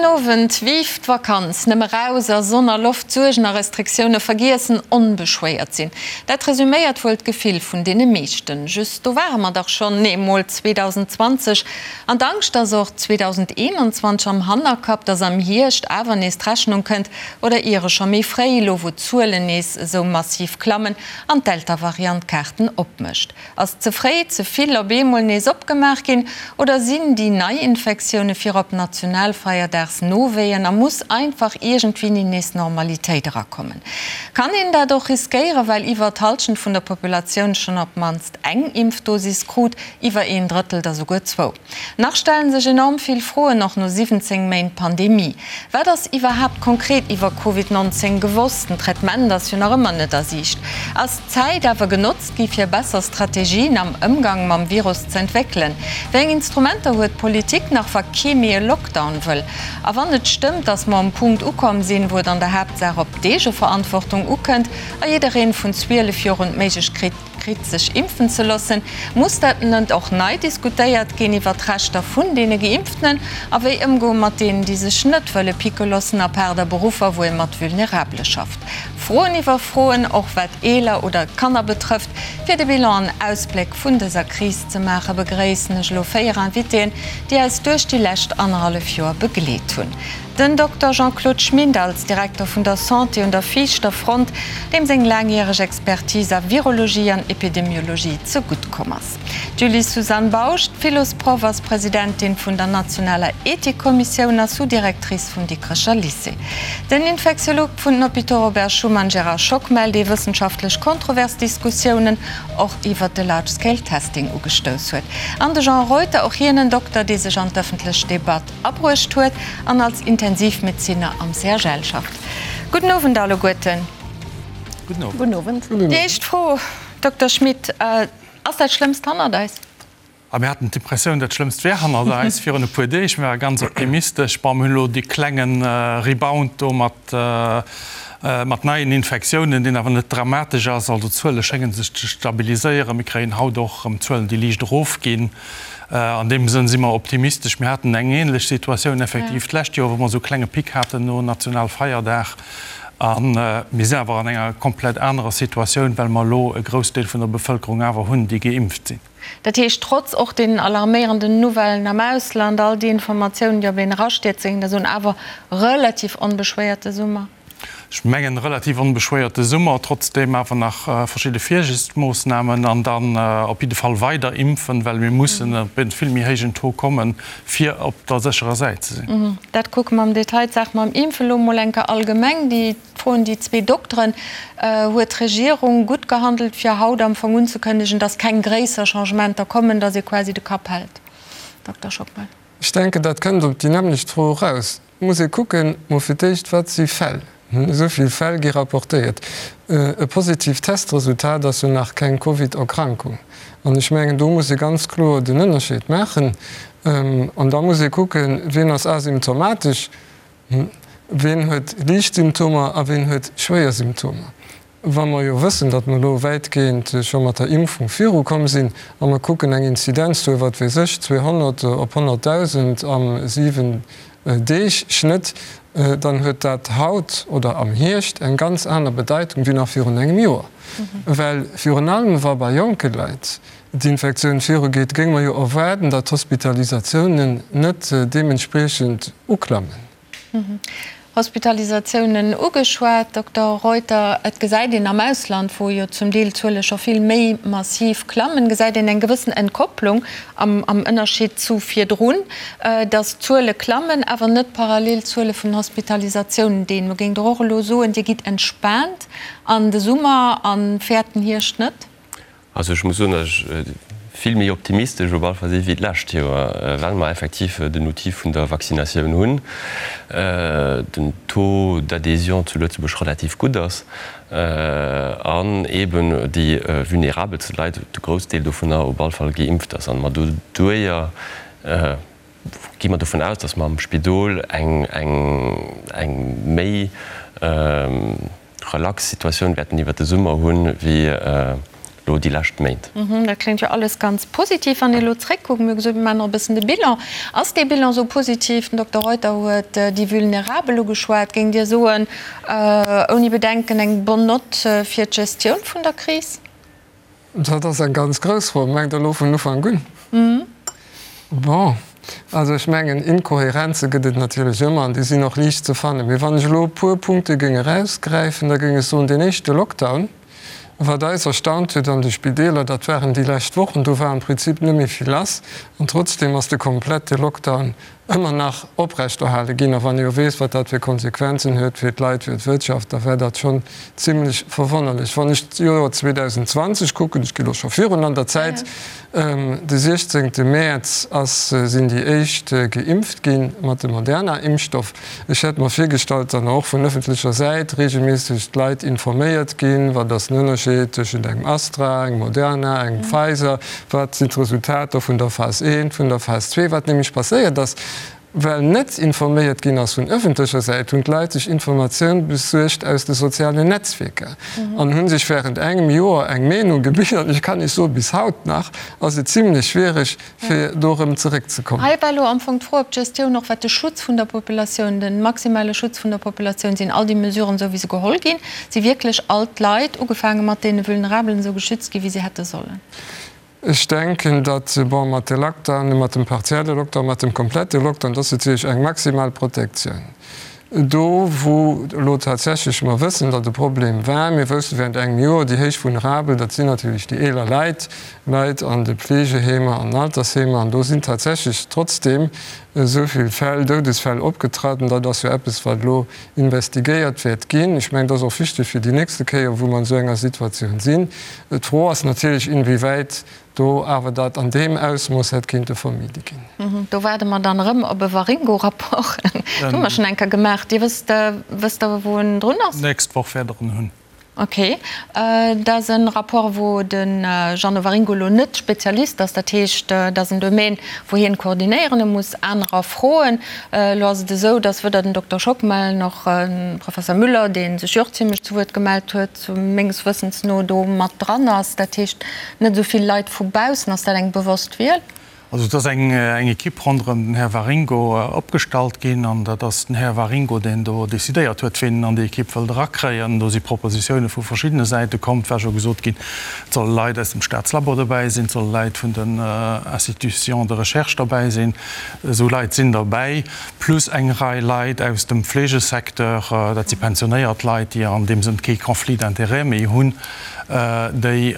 Owend, Vive d'Vakanz! Nëmme raus a Sonn a Loft, Suergen a Restriktioune vergiessen, onbeschwéiert sinn. Dat resuméiert wuel d'Gefill vun deene meeschten. Just, do ware mer dach schonn eemol 2020. An d'Angscht, dass och 2021 am Hannerkapp, dass am Hierscht awer nees d'Rechnung kënnt, oder iere scho méi fréi, elo wou d'Zuelen nees esou massiv klammen an d'Delta-Variant d'Kaarten opmécht. Ass ze fréi ze vill op eemol nees opgemaach ginn oder sinn déi Neiinfektioune virop Nationalfeierdags-Nowéien a muss einfach iergendwéini nees Normalitéit erakommen? Kann een dat och riskéieren, well iwwer d'Hallschent vun der Populatioun schonn op d'mannst eng Impfdosis krut, iwwer een Drëttel der souguer zwou? Nach stellen sech enorm vill Froen, och no 17 Méint Pandemie. Wat ass iwwerhaapt konkret iwwer Covid 19 gewosst? Den Traitement ass jo nach ëmmer net a Siicht. Ass d'Zäit awer genotzt gi fir besser Strategien am Ëmgang mam Virus ze entwéckelen? Wéi eng Instrumenter huet d'Politik nach, wa kee méi e Lockdown wëll? A wann et stëmmt, datt mer um Punkt ukomm sinn, wou et an der Haaptsaach op d'Eegeverantwortung ukënnt a jiddereen vun 12 Joer un d'Méiglechkeet kritt sech impfen ze loossen, muss dat net och nei diskutéiert ginn iwwer d'Rechter vun deene Geimpftenen a wéi ëmgoe mat deenen, déi sech net wëlle picke loossen, apaart a Beruffer, wou ee mat Vulnerabele schafft? Froen iwwer Froen, och wat Eeler oder Kanner betrëfft. Fir de Bilan an Ausbléck vun dëser Kris ze maachen, begréissen ech elo 4 Invitéen, déi eis duerch déi lescht annerhallef Joer begleet hunn. Den Dokter Jean-Claude Schmit als Direkter vun der Santé un der viischter Front, deem seng laangjäreg Expertise a Virologie an Epidemiologie ze gutt komm ass. D'Julie-Suzanne Bausch, d'Philosproff, ass Presidentin vun der nationaler Ethikkommissioun a Sous-Directrice vum Dikrecher Lycée. Den Infektiolog vun den Hôpitaux Robert Schuman Gérard Schockmel, dee wëssenschaftlech kontrovers Diskussiounen och iwwert de Large Scale Testing ugestouss huet. An de Jean Reuter, och hien en Dokter, dee sech an d'ëffentlech Debatt abruecht huet an als Intensivmedeziner am CHL schafft. Gudden Owend alleguerten. Gudden Owend. Déi éischt Fro, Dokter Schmit, Ass dat Schlëmmst hannert eis? A mir haten d'Impressioun, dat Schlëmmst wär hannert eis virun e puer Deeg. Mir ware ganz optimistesch. Bon, mir hunn elo dee klenge Rebound do mat mat neien Infektiounen, deen awer net dramatesch ass. Also d'Zuele schénge sech ze stabiliséieren. Mir kréien haut och erëm Zuelen, déi liicht erofginn. An deem Sënn si mer optimistesch. Mir haten eng ähnlech Situatioun effektiv d'lescht Joer, wou mer esou e klenge Pic haten no Nationalfeierdag. A mir sinn awer an enger komplett anerer Situatioun, well mer elo e Groussdeel vun der Bevëlkerung awer hunn, déi geimpft sinn. Dat heescht, trotz och deenen alarméierenden Nouvellen am Ausland, all déi Informatiounen, déi op een erastierzen, dat ass un awer relativ onbeschwéierte Summer. Ech mengen, relativ onbeschwéierte Summer, trotzdeem awer nach verschidde Virsiichtsmoossnamen an dann op jidde Fall weider impfen, well mir mussen op e vill méi héijen Taux kommen, fir op der sécherer Säit ze sinn. Dat kucke mer am Detail. D'Saach mam Impfen elo emol eng Kéier allgemeng. Déi Fro un déi zwee Dokteren, Huet d'Regierung gutt gehandelt, fir haut am Fong unzekënnegen, datt keng gréisser Changementer kommen, datt ee quasi de Kapp hält? Dokter Schockmel. Ech denken, dat kënnt op déi nämmlecht Fro eraus. Et muss ee kucken, mol fir d'éischt, wat si Fäll? Esou vill Fäll gi rapportéiert. E positiivt Testresultat ass jo nach keng Covid-Erkrankung. An ech mengen, do muss ee ganz kloer den Ënnerscheed maachen. An da muss ee kucken, wien ass asymptomatesch, wien huet liicht Symptomer a wien huet schwéier Symptomer. Wa mer jo wëssen, datt mer elo wäitgehend scho mat der Impfung virukomm sinn a mer kucken eng Inzidenz do, wat weess ech, 200 op 100.000 am 7 Deeg Schnëtt, dann huet dat haut oder am Hierscht eng ganz aner Bedeitung wéi nach virun engem Joer. Well virun allem wa bei jonke Leit d'Infektioun virugeet, géinge mer jo erwaarden, datt d'Hospitalisatiounen net deementspriechend uklammen. Hospitalisatiounen ugeschwat, Dokter Reuter. Et gesäit een am Ausland, wou jo zum Deel d'Zuele scho vill méi massiv klammen, gesäit een eng gewëssen Entkopplung am Ënnerscheed zu virdrun, datt d'Zuele klammen, awer net parallel d'Zuele vun Hospitalisatiounen. Deemno géingt Der och elo soen, Dir gitt entspaant an de Summer a fäert den Hierscht net? Also ech muss soen, datt ech vill méi optimistesch op alle Fall si wéi d'lescht Joer, well mer effektiv den Outil vun der Vaccinatioun hunn, den Taux d'adhésion zu Lëtzebuerg relativ gutt ass an eeben déi vulnerabelste Leit, de Groussdeel dovunner op alle Fall geimpft ass an mer doduerjer gi mer dovun aus, datt mer am Spidol eng méi relax Situatioun wäerten iwwert de Summer hunn, wéi elo. Elo déi lescht Méint. Dat kléngt jo alles ganz positiv. Wann ee elo zréckkuckt, mir hu gesot, mir maachen och e bëssen de Bilan. Ass dee Bilan esou positiv? Den Dokter Reuter huet déi Vulnerabel ugeschwat. Géingt Dir soen, ouni Bedenken eng bonne note fir d'Gestioun vun der Kris? Dat ass eng ganz grouss Fro. Mengt Der elo vun Ufank un? Bon, also ech mengen, Inkohärenze gëtt et natierlech ëmmer an déi sinn och liicht ze fannen. Mee wann ech elo e puer Punkte géing erausgräifen, da géing ech soen, deen éischte Lockdown, Wat eis erstaunt huet an de Spideeler, dat waren déi lescht Wochen, do war am Prinzip net méi vill lass an trotzdeem ass de komplette Lockdown ëmmer nach oprechterhale ginn. A wann ee jo weess, wat dat fir Konsequenzen huet fir d'Leit, fir d'Wirtschaft, da war dat schonn zimlech verwonnerlech. Wann ech d'Joer 2020 kucken, ech gi lo scho virun an der Zäit, De 16 Mäerz ass sinn déi éischt geimpft gi mat dem Moderna-Impfstoff. Ech hätt mer virgestallt, datt och vun ëffentlecher Säit reegelméisseg d'Leit informéiert ginn, wat ass den Ënnerscheed tëschent engem Astra, engem Moderna, engem Pfizer, wat sinn d'Resultater vun der Phas I, vun der Phas ii. Wat nämlech passéiert ass, Well net informéiert ginn ass vun ëffentlecher Säit, hunn d'Leit sech Informatioun besuergt aus de sozialen Netzwierker an hu sech wärend engem Joer eng Meenung gebilt. An ech kann Iech soen, bis haut nach ass et zimlech schwiereg, fir do erëm zeréckzekommen. Hei war elo am Fong d'Fro, ob d'Gestioun och wat de Schutz vun der Populatioun, de maximale Schutz vun der Populatioun, sinn all déi Mesuren esou wéi se geholl ginn, si wierklech all d'Leit, ugefaange mat deene Vulnerabelen, esou geschützt ginn, wéi se hätte sollen? Ech denken, datt, bon, mat de Lockdown, mat dem partielle Lockdown, mat dem komplette Lockdown, dat ass natierlech eng maximal Protektioun. Do, wou elo tatsächlech mer wëssen, datt e Problem war, mir wousste während engem Joer, déi héich Vulnerabel, dat sinn natierlech déi eeler Leit, Leit an de Pflegeheemer, an Altersheemer, an do sinn tatsächlech trotzdeem esou vill Fäll, Doudesfäll opgetraten. Dat ass jo eppes, wat elo investigéiert wäert ginn. Ech mengen, dat ass och wichteg fir déi nächste Kéier, wou mer an esou enger Situatioun sinn. D'Fro ass natierlech, inwiewäit do awer dat an deem Ausmooss hätt kinnte vermide ginn. Do waarde mer dann erëm op e Waringo-Rapport. Dat hu mer schonn eng Kéier gemaach. Dir wësst, wësst Der, wou en drun ass? D'nächst Woch wäert Der en hunn. Ok. Dat ass e Rapport, wou de Jeannot Waringo elo net Spezialist ass. Dat heescht, dat ass en Domaine, wou hien koordinéieren muss, anerer froen. Elo ass et esou, datt weder den Dokter Schockmel nach de Professor Müller, dee sech jo och zimlech zu Wuert gemellt huet, menges Wëssens no do mat dran ass, dat heescht net esou vill Leit vu baussen. Ass dat eng bewosst Wiel? Also et ass eng Ekipp ronderëm den Här Waringo opgestallt ginn an dat ass den Här Waringo, deen do decidéiert huet, ween en an déi Ekipp wëllt erakréien. Do si Propositioune vu verschiddene Säite komm. Et war scho gesot ginn, et solle Leit aus dem Staatslabo dobäi sinn, et solle Leit vun den Institutions de recherche dobäi sinn. Esou Leit sinn derbäi. Plus eng Rei Leit aus dem Fleegesecteur, dat si pensionéiert Leit, déi an deem Sënn kee Conflit d'intérêts méi hunn, déi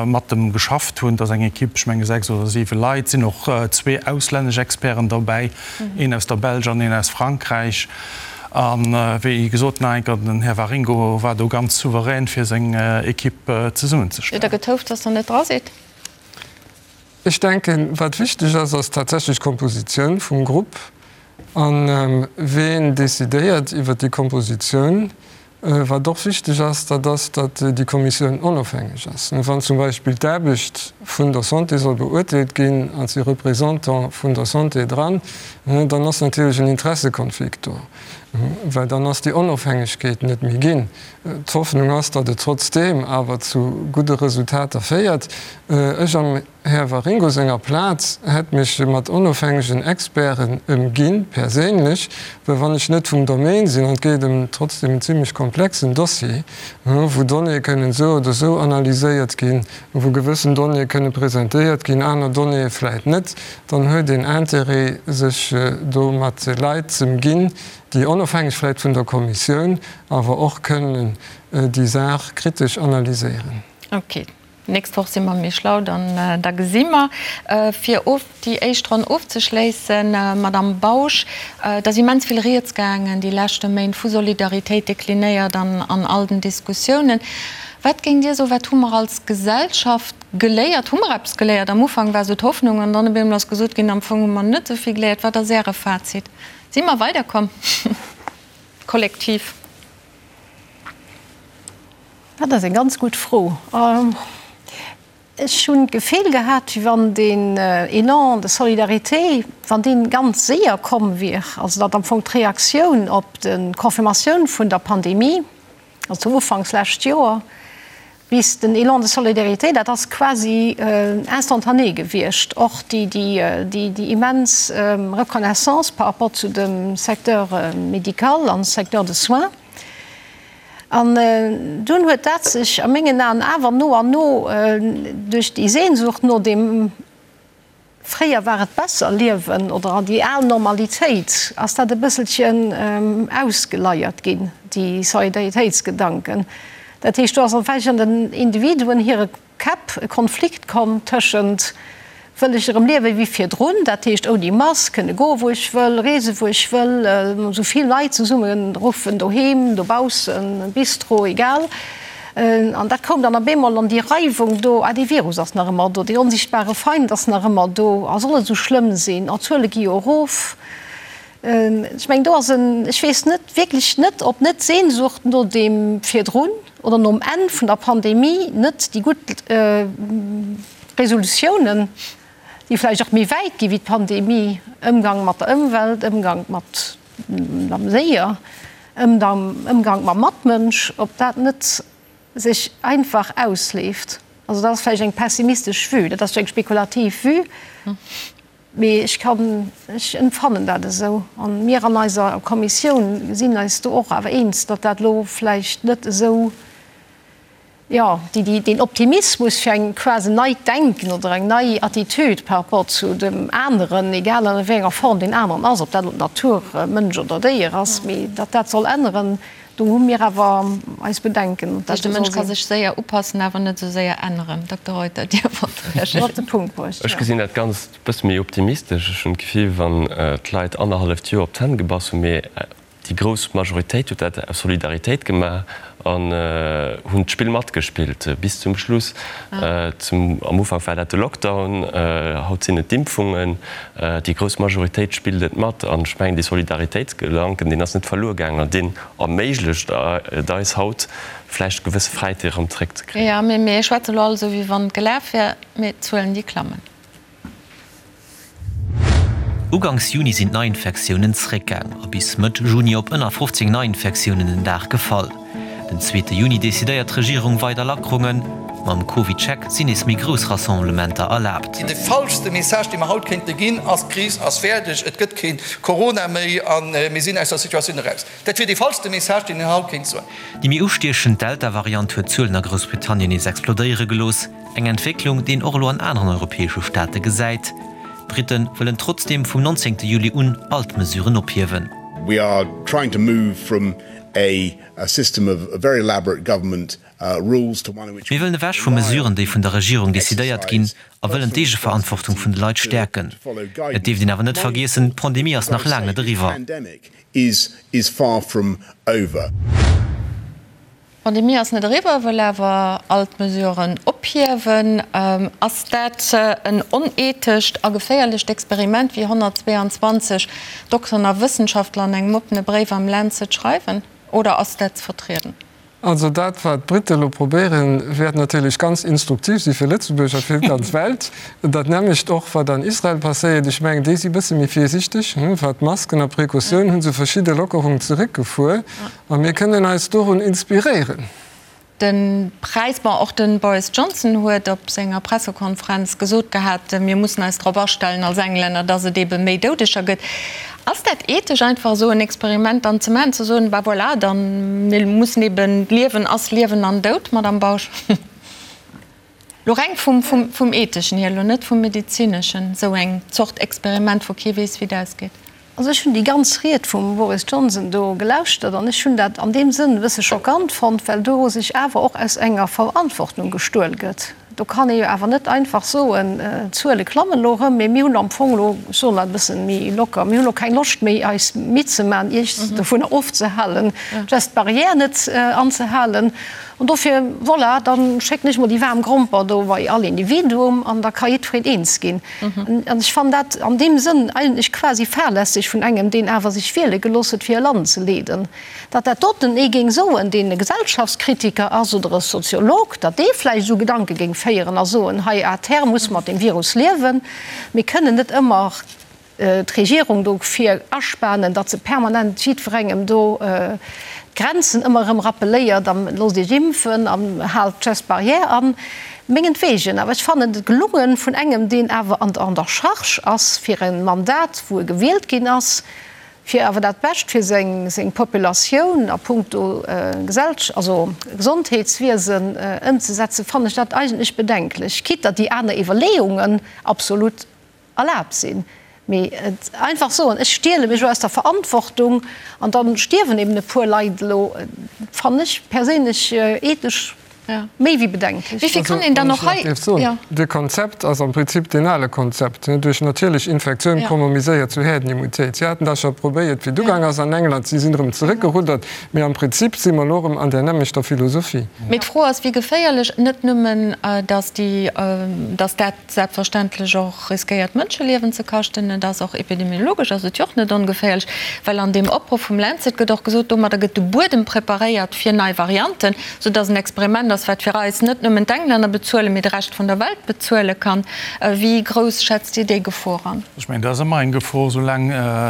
mat dem geschafft hunn. Dat ass eng Ekipp, ech menge 6 oder 7 Leit. Et sinn och zwee auslännesch Experten derbäi, een aus der Belsch an een aus Frankräich. A wéi gesot, nach eng Kéier, den Här Waringo war do ganz souverän, fir seng Ekipp zesummenzestellen. Hutt Der getouft, dass Der net dra sidd? Ech denken, wat wichteg ass, ass tatsächlech d'Kompositioun vum Grupp a ween decidéiert iwwert déi Kompositioun. Wat och wichteg ass, dat ass, datt déi Kommissioun onofhängeg ass. Wann zum Beispill d'Aarbecht vun der Santé soll beurteelt ginn an et si Représentants vun der Santé dran, dann ass natierlech en Interessekonflikt do, well dann ass déi Onofhängegkeet net méi ginn. D'Hoffnung ass, datt et trotzdeem awer zu gudde Resultater féiert. Ech am Här Waringo senger Plaz hätt mech mat onofhängegen Experten ëmginn, perséinlech, well wann ech net vum Domaine sinn, an et geet ëm trotzdeem en zimlech komplexen Dossier, wou Donnéeë kënnen esou oder esou analyséiert ginn, wou gewëssen Donnéeë kënne presentéiert ginn, aner Donnéeë vläit net, dann huet een Intérêt, sech do mat Leit z'ëmginn, déi onofhängeg vläit vun der Kommissioun, awer och kënnen déi Saach kritesch analyséieren. Ok, d'nächst Woch si mer méi schlau, dann da gesi mer. Fir of déi éischt Ronn ofzeschléissen, Madamm Bausch, et ass immens vill Rieds gaangen déi leschte Méint vu Solidaritéit, deklinéiert an an all den Diskussiounen. Wat géingt Dir soen, wat hu mer als Gesellschaft geléiert? Hu mer eppes geléiert? Am Ufank war esou d'Hoffnung an dann op eemol ass gesot ginn, am Fong hu mer net esou vill geléiert. Wat ass Äre Fazit? Si mer weiderkomm? Kollektiv? Dat ass eng ganz gutt Fro. Ech hunn d'Gefill gehat, wéi wann deen Élan de solidarité, wann dee ganz séier komm wier, also datt am Fong d'Reaktioun op d'Confirmatioun vun der Pandemie, also ufanks lescht Joer. Bis den Élan de solidarité, dat ass quasi instantané gewiescht, och déi immens Reconnaissance par rapport zu dem Secteur médical an Secteur de soins. An dunn huet dat sech a mengen Aen awer no an no duerch déi Sehnsucht no deem, Fréier war et besser liewen oder an déi al Normalitéit ass dat e bësselchen ausgeleiert ginn, déi Solidaritéitsgedanken. Dat heescht, do ass vläicht an den Individuen hire Käpp e Konflikt komm tëschent, Wëll ech erëm liewe wéi virdrun, dat heescht ouni Mask, kënne goe wou ech wëll, reese wou ech wëll, esou vill Leit zesumme ruffen, doheem, dobaussen, Bistro, egal. An dat koum dann op eemol an déi Reiwung do, ah dee Virus ass nach ëmmer do, dee onsichtbare Feind ass nach ëmmer do, a soll et esou schlëmm sinn, oh d'Zuele gi jo erof. Ech mengen do ass en, ech weess net, wierklech net, ob net d'Sehnsucht no deem virdrun oder nom Enn vun der Pandemie net déi gutt Resolutiounen, déi vläicht och méi wäit gi wéi d'Pandemie, Ëmgang mat der Ëmwelt, Ëmgang mat mam Déier, Ëmgank mam Matmënsch, ob dat net sech einfach ausleeft. Also dat ass vläicht eng pessimistesch Vue, dat ass eng spekulativ Vue, mee ech kann, ech empfannen dat esou. A mir an eiser Kommissioun sinn eis do och awer eens, datt dat elo vläicht net esou, Jo, déi, deen Optimismus fir eng quasi neit Denken oder eng nei Attitude par rapport zu dem aneren, egal an wéi enger Form deen aneren ass, ob dat elo d'Natur, Mënsch oder Déier ass, mee datt dat soll änneren, do hu mir awer eis Bedenken. Dat heescht, de Mënsch ka sech séier upassen, awer net esou séier änneren. Dokter Reuter, Dir wollt reagéieren. Op de Punkt bruecht, jo. Ech gesinn dat Ganzt e bësse méi optimistesch. Ech hunn d'Gefill, wann d'Leit annerhalleft Joer op d'Hänn gebass hunn, mee Déi grouss Majoritéit huet dat aus Solidaritéit gemaach an hunn d'Spill matgespillt bis zum Schluss. Am Ufank war dat de Lockdown, haut sinn et d'Impfungen. Déi grouss Majoritéit spillt et mat an ech mengen, dee Solidaritéitsgedanken, deen ass net verluer gaangen an deen erméiglecht et eis haut, vläicht gewësse Fräiheete erëm zeréckzekréien. Jo, mee mir schwätze elo all esou, wéi wann et gelaf wär, mee d'Zuelen, déi klammen. Uganks Juni sinn d'Neiinfektiounen zréckgaang a bis Mëtt Juni op ënner 15 Neiinfektiounen den Dag gefall. Den zweete Juni decidéiert d'Regierung weider Lackerungen. Mam CovidCheck sinn nees méi grouss Rassemblementer erlaabt. De falschste Message, dee mer haut kéinte ginn, ass, D'Kris ass fäerdeg, et gëtt kee Corona méi a mir sinn aus der Situatioun eraus. Dat wier dee falschste Message, deen een haut kéint soen. Déi méi ustiechend Delta-Variant huet d'Zuelen a Groussbritannien nees explodéiere gelooss. Eng Entwécklung, déi een och elo an aneren europäesche Staate gesäit. D'Britte wëllen trotzdeem vum 19 Juli un all d'Mesuren ophiewen. We are trying to move from a system of very elaborate government rules to one in which Mir wëllen ewech vu Mesuren, déi vun der Regierung decidéiert ginn, a wëllen d'Eegeverantwortung vun de Leit stäerken. Et dierft een awer net vergiessen, d'Pandemie ass nach laang net eriwwer. D'Pandemie ass net eriwwer, wëll awer all d'Mesuren ophiewen. Ass dat en onethescht a geféierlecht Experiment, wéi 122 Dokteren a Wëssenschaftler an engem oppene Bréif am Lancet schreiwen, oder ass dat ze vertrieden? Also dat, wat d'Brite elo probéieren, wäert natierlech ganz instruktiv si fir Lëtzebuerg a fir d'ganz Welt. Dat nämmlecht och, wat an Israel passéiert. Ech mengen, déi si e bësse méi virsichteg, wat d'Masken a Precautioun hu se verschidde Lockerungen zeréckgefuer. A mir kënnen eis dorun inspiréieren. De Präis, bon, och de Boris Johnson huet op senger Pressekonferenz gesot gehat, mir mussen eis drop astellen als Englänner, datt et ebe méi Doudeger gëtt. Ass dat ethesch einfach esou en Experiment dann ze maachen, ze soen, bah voilà, dann, mir mussen eben, d'Liewen ass Liewen an Doud, Madamm Bausch? Lo reng vum Etheschen hier, lo net vum Medezineschen, esou eng Zort Experiment, wou kee weess, wéi et ausgeet. Also ech hunn déi ganz Ried vum Boris Johnson do gelauschtert an ech hunn dat an deem Sënn e bësse schockant fonnt, well do sech awer och aus enger Verantwortung gestuel gëtt. Do kann ee jo awer net einfach soen, d'Zuele klammen elo erëm, mee mir hunn am Fong elo, ech soen dat e bësse méi locker, mir hunn elo keng Loscht méi eis Midd ze maachen, Iech dovunner ofzehalen, d'Gestes barrières net anzehalen. An dofir, voilà, da schécken ech mol déi waarm Gromper do bei all Individuum an da ka jiddwereen eens ginn. An ech fannen dat an deem Sënn eigentlech quasi fahrlässeg vun engem, deen awer sech wiele gelooss huet, fir e Land ze leeden. Datt dat doten ee géing soen, deen e Gesellschaftskritiker ass oder e Soziolog, datt dee vläicht esou Gedanke géing féieren a soen, hei à terme musse mer mat deem Virus liewen, mir kënnen net ëmmer. d'Regierung dofir aspanen, datt se permanent jiddwerengem do d'Grenzen ëmmer erëm rappeléiert a loosst Iech impfen an haalt d'Gestes barrières an. Mengetwegen. Awer ech fannen et gelungen vun engem, deen awer an der Charge ass fir e Mandat, wou e gewielt ginn ass, fir awer dat Bescht fir seng Populatioun a puncto also Gesondheetswiesen ëmzesetzen, fannen ech dat eigentlech bedenklech, quitte datt déi aner Iwwerleeungen absolut erlaabt sinn. Mee et einfach soen, ech stiele mech elo aus der Verantwortung an da stierwen eben e puer Leit elo, fannen ech perséinlech ethesch méi wéi bedenklech. Wéi vill kann een dann och hei. De Konzept ass am Prinzip deen ale Konzept, duerch natierlech Infektioun komme méi séier zu Häerdenimmunitéit. Si haten dat scho probéiert, wéi et ugaang ass an England. Si sinn erëm zeréckgeruddert. Mee am Prinzip si mer elo erëm an där nämmlechter Philosophie. Mee d'Fro ass, wéi geféierlech, net nëmmen, datt déi, datt dat selbstverständlech och riskéiert Mënscheliewen ze kaschten. Et ass och epidemiologesch ass et jo och net ongeféierlech, well an deem Opruff vum Lancet gëtt och gesot, domadder gëtt de Buedem preparéiert fir nei Varianten, soudass en Experiment ass, wat fir eis net nëmmen d'Englänner bezuelen, mee de Rescht vun der Welt bezuele kann. Wéi grouss schätzt Dir déi Gefor an? Ech mengen, dat ass ëmmer eng Gefor, soulaang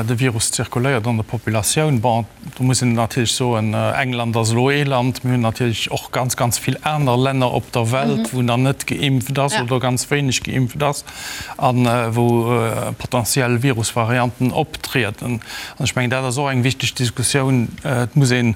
de Virus zirkuléiert an der Populatioun. Bon, Do muss een natierlech soen, England ass elo ee Land. Mir hunn natierlech och ganz, ganz vill aner Länner op der Welt, wou nach net geimpft ass oder ganz wéineg geimpft ass a wou potentiell Virusvarianten optrieden. An ech mengen, dat ass och eng wichteg Diskussioun. Et muss een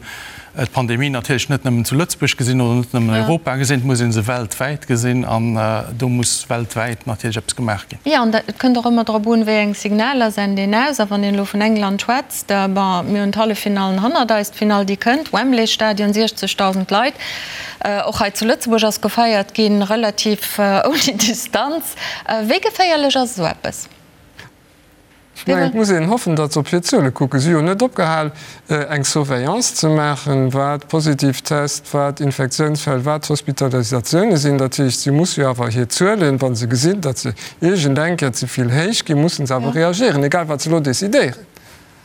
d'Pandemie natierlech net nëmmen zu Lëtzebuerg gesinn oder net nëmmen Europa gesinn, et muss ee se weltwäit gesinn an do muss weltwäit natierlech eppes gemaach ginn. Jo, an et kënnt och ëmmer drop un, wéi eng Signaler sent een aus. A wann een elo vun England schwätzt, bon, mir hunn d'Halleffinallen hannert eis, d'Finall déi kënnt, Wembley-Stadion, 60.000 Leit. Och hei zu Lëtzebuerg ass gefeiert ginn, relativ ouni Distanz. Wéi geféierlech ass esou eppes? Ech mengen, et muss een hoffen, datt se op hir Zuele kucken. Si hu jo net opgehal, eng Surveillance ze maachen, wat positiv Test, wat Infektiounsfäll, wat Hospitalisatioune sinn. Dat heescht, si musse jo awer hir Zuelen, wa se gesinn, datt se iergend eng Kéier ze vill héich ginn, musse se awer reagieren, egal wat se elo decidéieren.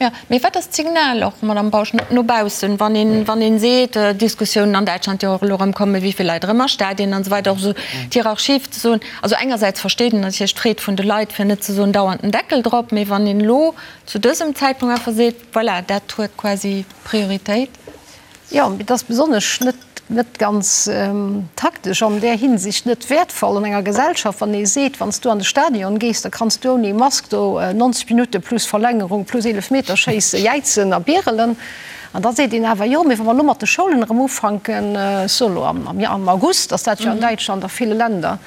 Jo, mee wat ass d'Signal och, Madamm Bausch, no baussen, wann een, wann een seet, Diskussiounen an Däitschland jo och elo erëm kommen, wéi vill Leit erëm a Stadien an esou weider, och esou d'Hierarchie ze soen, also engersäits versteet een natierlech d'Freed vun de Leit, fir net ze soen dauernd den Deckel drop, mee wann een elo zu dësem Zäitpunkt einfach seet, voilà, dat huet quasi Prioritéit. Jo, mee et ass besonnesch net, net ganz taktesch, an där Hinsicht net wäertvoll an enger Gesellschaft, wann ee seet, wann s du an de Stadion gees, da kanns du ouni Mask do 90 Minutte plus Verlängerung plus Eelefmeterschéisse jäizen a bierelen. An da seet een awer, jo, mee wa mer elo mat de Schoulen erëm ufanken, ech soe elo am August ass dat jo an Däitschland a ville Länder,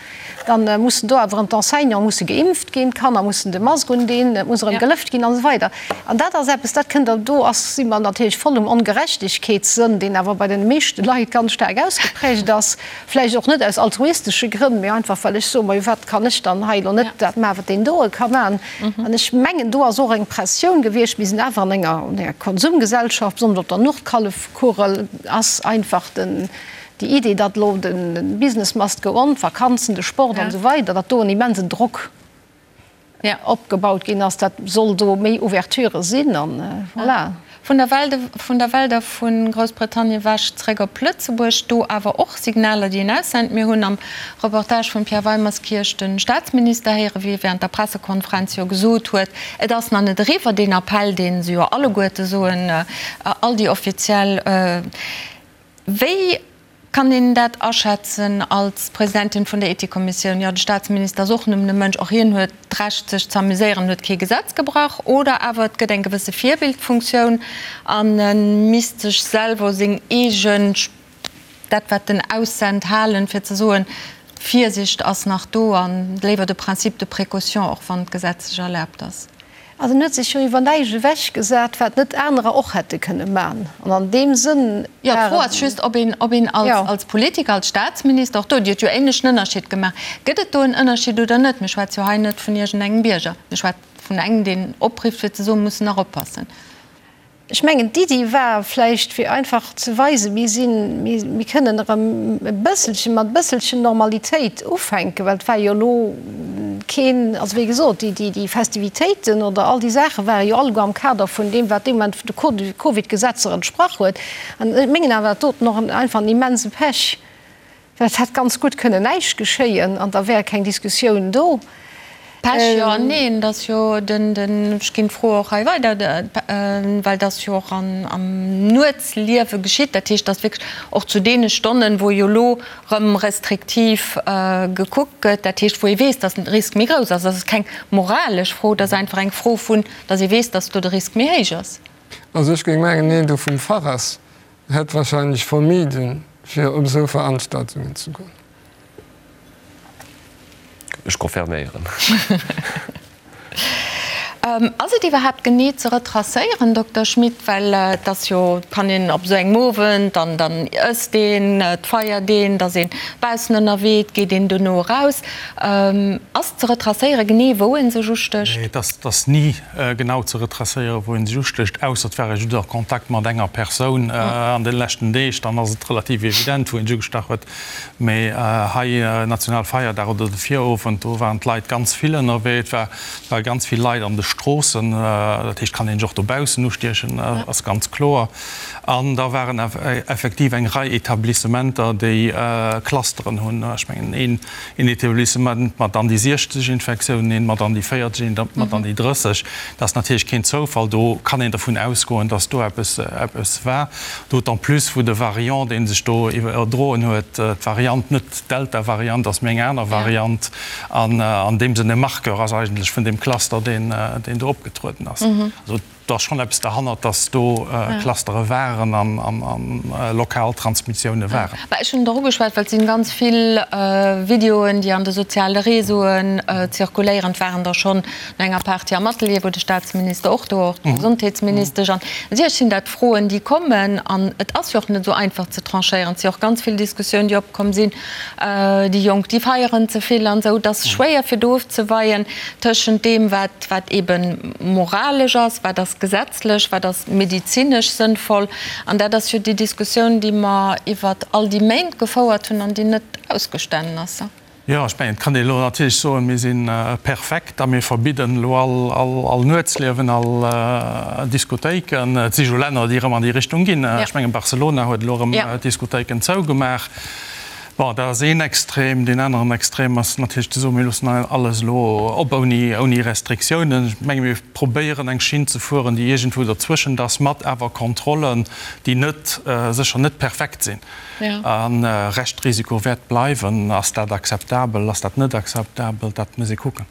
Dann mussen do awer erëm d'Enseignante musse geimpft ginn, d'Kanner mussen de Mask undinn, et muss erëm gelëft ginn an esou weider. An dat ass eppes, dat kënnt, do ass, si mer natierlech voll um Ongerechtegkeetssënn, deen awer bei den meeschte Leit ganz staark ausgeprägt ass, vläicht och net aus altruistesche Grënn, mee einfach well ech soen, majo wat kann ech dann hei elo net dat maachen, wat deen doe ka maachen. An ech mengen, do ass och eng Pressioun gewiescht, mir sinn awer an enger, an enger Konsumgesellschaft, besonnesch op der Nordhallefkugel ass einfach den, Déi Idee, datt elo de Business must go on, d'Vakanzen, de Sport an esou weider, datt do en immensen Drock opgebaut ginn ass, dat soll do méi Ouverture sinn an voilà. Vun der Welt, vun der Welt a vu Groussbritannien ewech zréck op Lëtzebuerg, do awer och Signaler, déi een aussent. Mir hunn am Reportage vum Pierre Weimerskirch de Staatsminister héieren, wéi e während der Pressekonferenz jo gesot huet, et ass nach net eriwwer, deen Appell, dee se jo alleguerte soen, all déi offiziell, Wéi kann een dat aschätzen als Presidentin vun der Ethikkommissioun? Jo, de Staatsminister ass och nëmmen e Mënsch, och hien huet d'Recht sech z'amuséieren, huet kee Gesetz gebrach. Oder awer et gëtt eng gewësse Virbildfunktioun an e misst sech selwer u seng eegen, dat wat en aussent, halen, fir ze soen, Virsicht ass nach do an léiwer de Principe de précaution, och wann d'gesetzlech erlaabt ass. Also en huet sech jo iwwer näischt ewech gesat, wat net anerer och hätte kënne man. An an deem Sënn Jo, d'Fro ass just, ob een, ob een als, als Politiker, als Staatsminister, och do, Dir hutt jo ähnlech en Ënnerschied gemaach, gëtt et do en Ënnerschied oder net? Mir schwätze jo hei net vun iergendengem Bierger, mir schwätze vun engem, deen oprifft, fir ze soen, mir mussen nach oppassen. Ech mengen, d'Iddi war vläicht, fir einfach ze weisen, mir sinn, mir kënnen erëm e bësselchen, mat e bësselchen Normalitéit ufänken, well et war jo elo keen, also wéi gesot, déi, déi Festivitéiten oder all déi Saache ware jo alleguer am Kader vun deem, wat dee Moment de Covid-Gesetzer entsprach huet. An ech mengen awer, dat doten och einfach en immense Pech. Well et hätt ganz gutt kënnen näischt geschéien an da wär keng Diskussioun do. Pech jo an neen, et ass jo den, den, ech ginn d'Fro och hei weider, well et ass jo och an, am Nuetsliewe geschitt, dat heescht, datt wierklech och zu deene Stonnen, wou jo elo rëm restriktiv gekuckt gëtt, dat heescht, wou ee weess, datt den Risk méi grouss ass. Dat ass keng moralesch Fro, dat ass einfach eng Fro vun, datt ee weess, datt do de Risk méi héich ass. Also ech géing mengen, een do vum Fach ass, hätt wahrscheinlech vermiden, fir op esou Veranstaltungen ze goen. Ech confirméieren. Ass et iwwerhaapt genee ze retracéieren, Dokter Schmit? Well et ass jo, et kann een op esou engem Owend, dann dann ësst een, et feiert een, et ass een baussen ënnerwee, et geet een dono eraus. Ass ze retracéieren genee, wou ee sech ustécht? Nee, et ass, et ass ni genau ze retracéieren, wou ee sech ustécht, ausser et war ee just a Kontakt mat enger Persoun an de leschten Deeg, dann ass et relativ evident, wou ee sech ugestach huet. Mee hei Nationalfeierdag oder de Virowend, do waren d'Leit ganz vill ënnerwee. Et ware ganz vill Leit an de Stroossen. Dat heescht, kann een sech och dobaussen ustiechen, ass ganz kloer. An da waren effektiv eng Rei Etablissementer, déi Clusteren hunn. Ech mengen een Etablissement mat an déi 60 Infektiounen, een mat an déi 40, een mat an déi 30. Dat ass natierlech keen Zoufall. Do kann een dervun ausgoen, datt do eppes war. D'autant plus wou de Variant, dee sech do iwwerdroen huet, d'Variant net d'Delta-Variant ass, mee eng aner Variant, an an deem Sënn e Marqueur ass eigentlech vun deem Cluster, deen do opgetrueden ass. Also do ass schonn eppes derhannert, datt do Clustere waren an lokal Transmissioune waren. Mä ech hunn et och ugeschwat, well et sinn ganz vill Videoen, déi an de soziale Réseauen zirkuléieren. Et waren der schonn No enger Party am Atelier, wou de Staatsminister och do war, och d'Gesondheetsministesch. An natierlech sinn dat Froen, déi kommen. An et ass jo och net esou einfach ze tranchéieren. Et si och ganz vill Diskussiounen, déi opkomm sinn, déi Jonk, déi feieren ze vill an esou. Et ass schwéier fir do ofzeweien tëschent deem, wat, wat eebe moralesch ass, wat ass gesetzlech, wat ass medezinesch sënnvoll. An dat ass jo déi Diskussioun, déi mer iwwert all déi Méint gefouert hunn an déi net ausgestanen ass. Jo, ech mengen, et kann een elo natierlech soen, mir si perfekt a mir verbidden elo all Nuetsliewen, all Diskothéiken. Et si jo Länner, déi erëm an déi Richtung ginn. Ech mengen, Barcelona huet elo erëm d'Diskothéiken zougemaach. Bon, dat ass een Extrem. Deen aneren Extrem ass natierlech ze soen, mir loossen alles elo op ouni Restriktiounen. Ech menge mir probéieren eng Schinn ze fueren, déi iergendwou derzwëschent ass, mat awer Kontrollen, déi net, sécher net perfekt sinn. A Reschtrisiko wäert bleiwen. Ass dat akzeptabel, ass dat net akzeptabel? Dat muss ee kucken.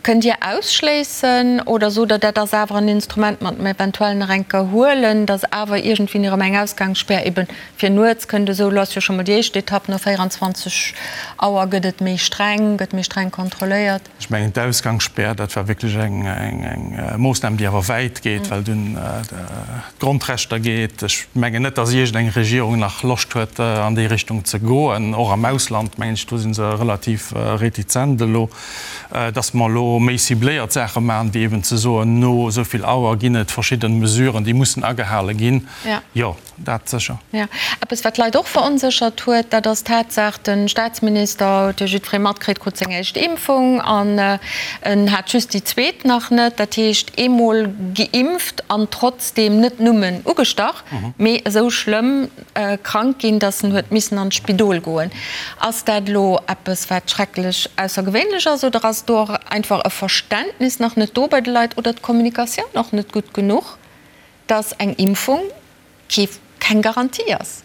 Kënnt Dir ausschléissen oder sot Der, dat ass awer en Instrument, mat mer eventuell nach eng Kéier huelen, datt awer iergendwéini erëm eng Ausgangsspär ebe fir nuets kënnt? Esou elo ass jo scho mol déi éischt Etapp, no 24 Auer gëtt et méi streng, gëtt méi streng kontrolléiert. Ech mengen, d'Ausgangsspär, dat war wierklech eng Moossnam, déi awer wäit geet, well et un d'Grondrechter geet. Ech mengen net, datt iergendeng Regierung nach Loscht huet, an déi Richtung ze goen. Och am Ausland, mengen ech, do si se relativ retizent elo, datt mer elo méi cibléiert Saache maachen, wéi eben ze soen, no esou vill Auer ginn et verschidde Mesuren, déi mussen agehale ginn. Jo. Dat sécher. Jo. Eppes, wat d'Leit och veronséchert huet, dat ass d'Tatsaach, de Staatsminister, huet jo jiddweree matkritt, krut seng éischt Impfung an en hat just déi zweet nach net. Dat heescht, eemol geimpft an trotzdeem net nëmmen ugestach, mee esou schlëmm krank ginn, datt en huet missen an d'Spidol goen. Ass dat elo eppes, wat schrecklech aussergewéinlech ass oder ass do och einfach e Verständnis nach net do bei de Leit oder d'Kommunikatioun och net gutt genuch? Dass eng Impfung kee keng Garantie ass.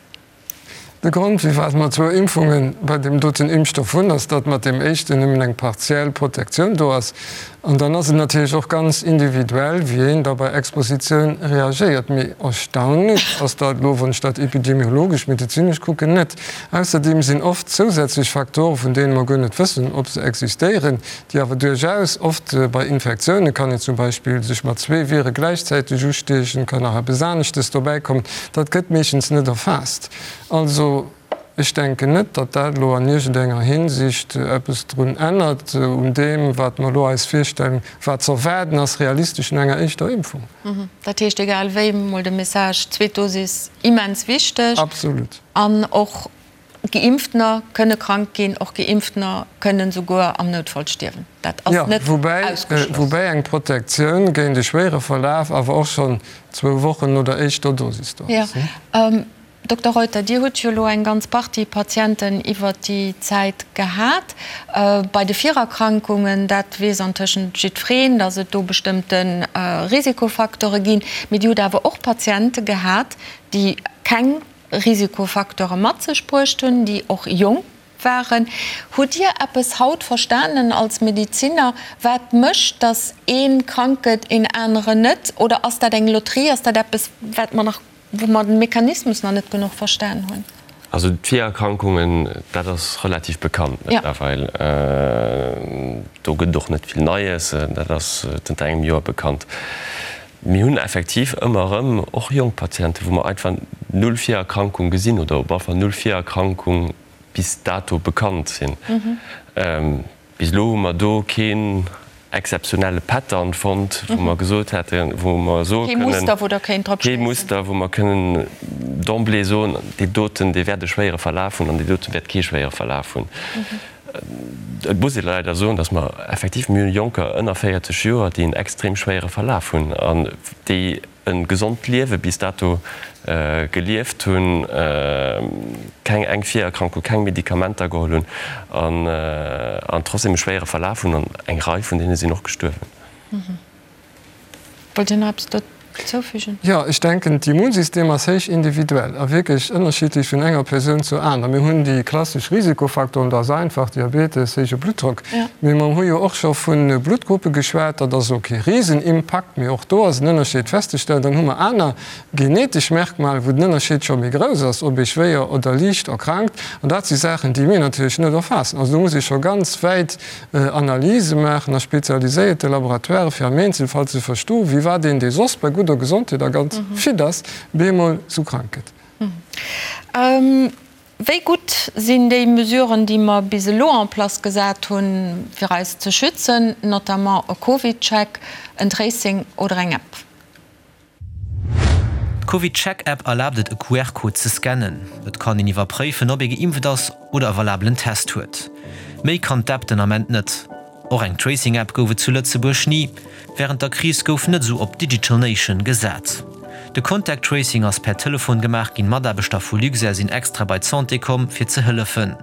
De Grond, firwat mer zwou Impfunge bei deem doten Impfstoff hunn, ass, datt mat deem éischten nëmmen eng partiell Protektioun do ass. An dann ass et natierlech och ganz individuell, wéi een da bei Expositioun reagéiert. Mee erstaunlech ass dat elo, wann ech dat epidemiologesch, medezinesch kucken, net. Ausserdeem sinn oft zousätzlech Faktoren, vun deene mer guer net wëssen, ob se existéieren, déi awer duerchaus oft bei Infektioune kann een zum Beispill sech mat zwee Vire gläichzäiteg ustiechen, kann nach eppes aneschtes dobäi kommen, dat gëtt meeschtens net erfaasst. Also ech denken net, datt dat elo an iergendenger Hinsicht eppes drun ännert un deem, wat mer elo eis virstellen, wat z'erwaarden ass realistesch no enger éischter Impfung. Dat heescht, egal wéi, mol de Message, zweet Dosis immens wichteg. Absolut. An och Geimpftener kënne krank ginn, och Geimpftener kënnen souguer am Noutfall stierwen. Dat ass net ausgeschloss. Woubäi eng Protektioun géint e schwéiere Verlaf awer och schonn zwou Wochen no der éischter Dosis do ass. Dokter Reuter, Dir hutt jo elo eng ganz Partie Patienten iwwert déi Zäit gehat. Bei de Virerkrankungen, dat weess antëschent jiddwereen, datt et do bestëmmte Risikofaktore ginn. Mee Dir hutt awer och Patiente gehat, déi keng Risikofacteure mat sech bruecht hunn, déi och jonk waren. Hutt Dir eppes haut verstanen als Medeziner, wat mécht, datt ee krank gëtt, een aneren net? Oder ass dat eng Lotterie? Ass dat eppes, wat mer nach, wou mer de Mechanismus nach net genuch verstan hunn? Also d'Virerkrankungen, dat ass relativ bekannt mëttlerweil. Do gëtt et och net vill Neies, dat ass zënter engem Joer bekannt. Mir hunn effektiv ëmmer erëm och jonk Patienten, wou mer einfach null Virerkrankung gesinn oder op alle Fall null Virerkrankung bis dato bekannt sinn. Bis elo hu mer do keen exzeptionelle Pattern fonnt, wou mer gesot hätten, wou mer soe kënnen, kee Muster, wou Der kéint drop schéissen. Kee Muster, wou mer kënnen d'emblée soen, dee doten, dee wäert e schwéiere Verlaf hunn an dee dote wäert kee schwéiere Verlaf hunn. Et muss ee leider soen, datt mer effektiv, mir hunn Jonker ënner 40 Joer, déi en extrem schwéiere Verlaf hunn an déi e gesond Liewe bis dato gelieft hunn, keng eng Virerkrankung, keng Medikamenter geholl hunn an trotzdem e schwéiere Verlaf hunn an eng Rei vun deene sinn och gestuerwen. Wollt Dir nach eppes dozoufügen? Jo, ech denken, d'Immunsystem ass héich individuell a wierklech ënnerschiddlech vun enger Persoun zur aner. Mir hunn déi klassesch Risikofaktoren, dat ass einfach, Diabetes, héije Bluttdrock. Mee mer hu jo och scho vu Bluttgruppe geschwat, dat ass elo kee Risenimpakt, mee och do ass en Ënnerscheed festzestellen. Dann hu mer aner genetesch Merkmale, wou den Ënnerscheed scho méi grouss ass, ob ee schwéier oder liicht erkrankt. An dat si Saachen, déi mir natierlech net erfaassen. Also do muss ee scho ganz wäit Analyse maachen a spezialiséierte Laboratoiren, fir am Eenzelfall ze verstoen, wéi wat een, dee soss bei gudder Gesondheet a ganz fit ass, bemol sou krank gëtt. Wéi gutt sinn déi Mesuren, déi mer bis elo en place gesat hunn, fir eis ze schützen, notamment e CovidCheck, en Tracing oder eng App? D'CovidCheck-App erlaabt et e QR-Code ze scannen. Et kann een iwwerpréifen, ob ee geimpft ass oder e valabelen Test huet. Méi kann d'App den Ament net. Och eng Tracing-App gouf et zu Lëtzebuerg ni. Wärend der Kris gouf net esou op Digital Nation gesat. De Contact Tracing ass per Telefon gemaach ginn. Mataarbechter vu Luxair sinn extra bei d'Santé komm, fir ze hëllefen.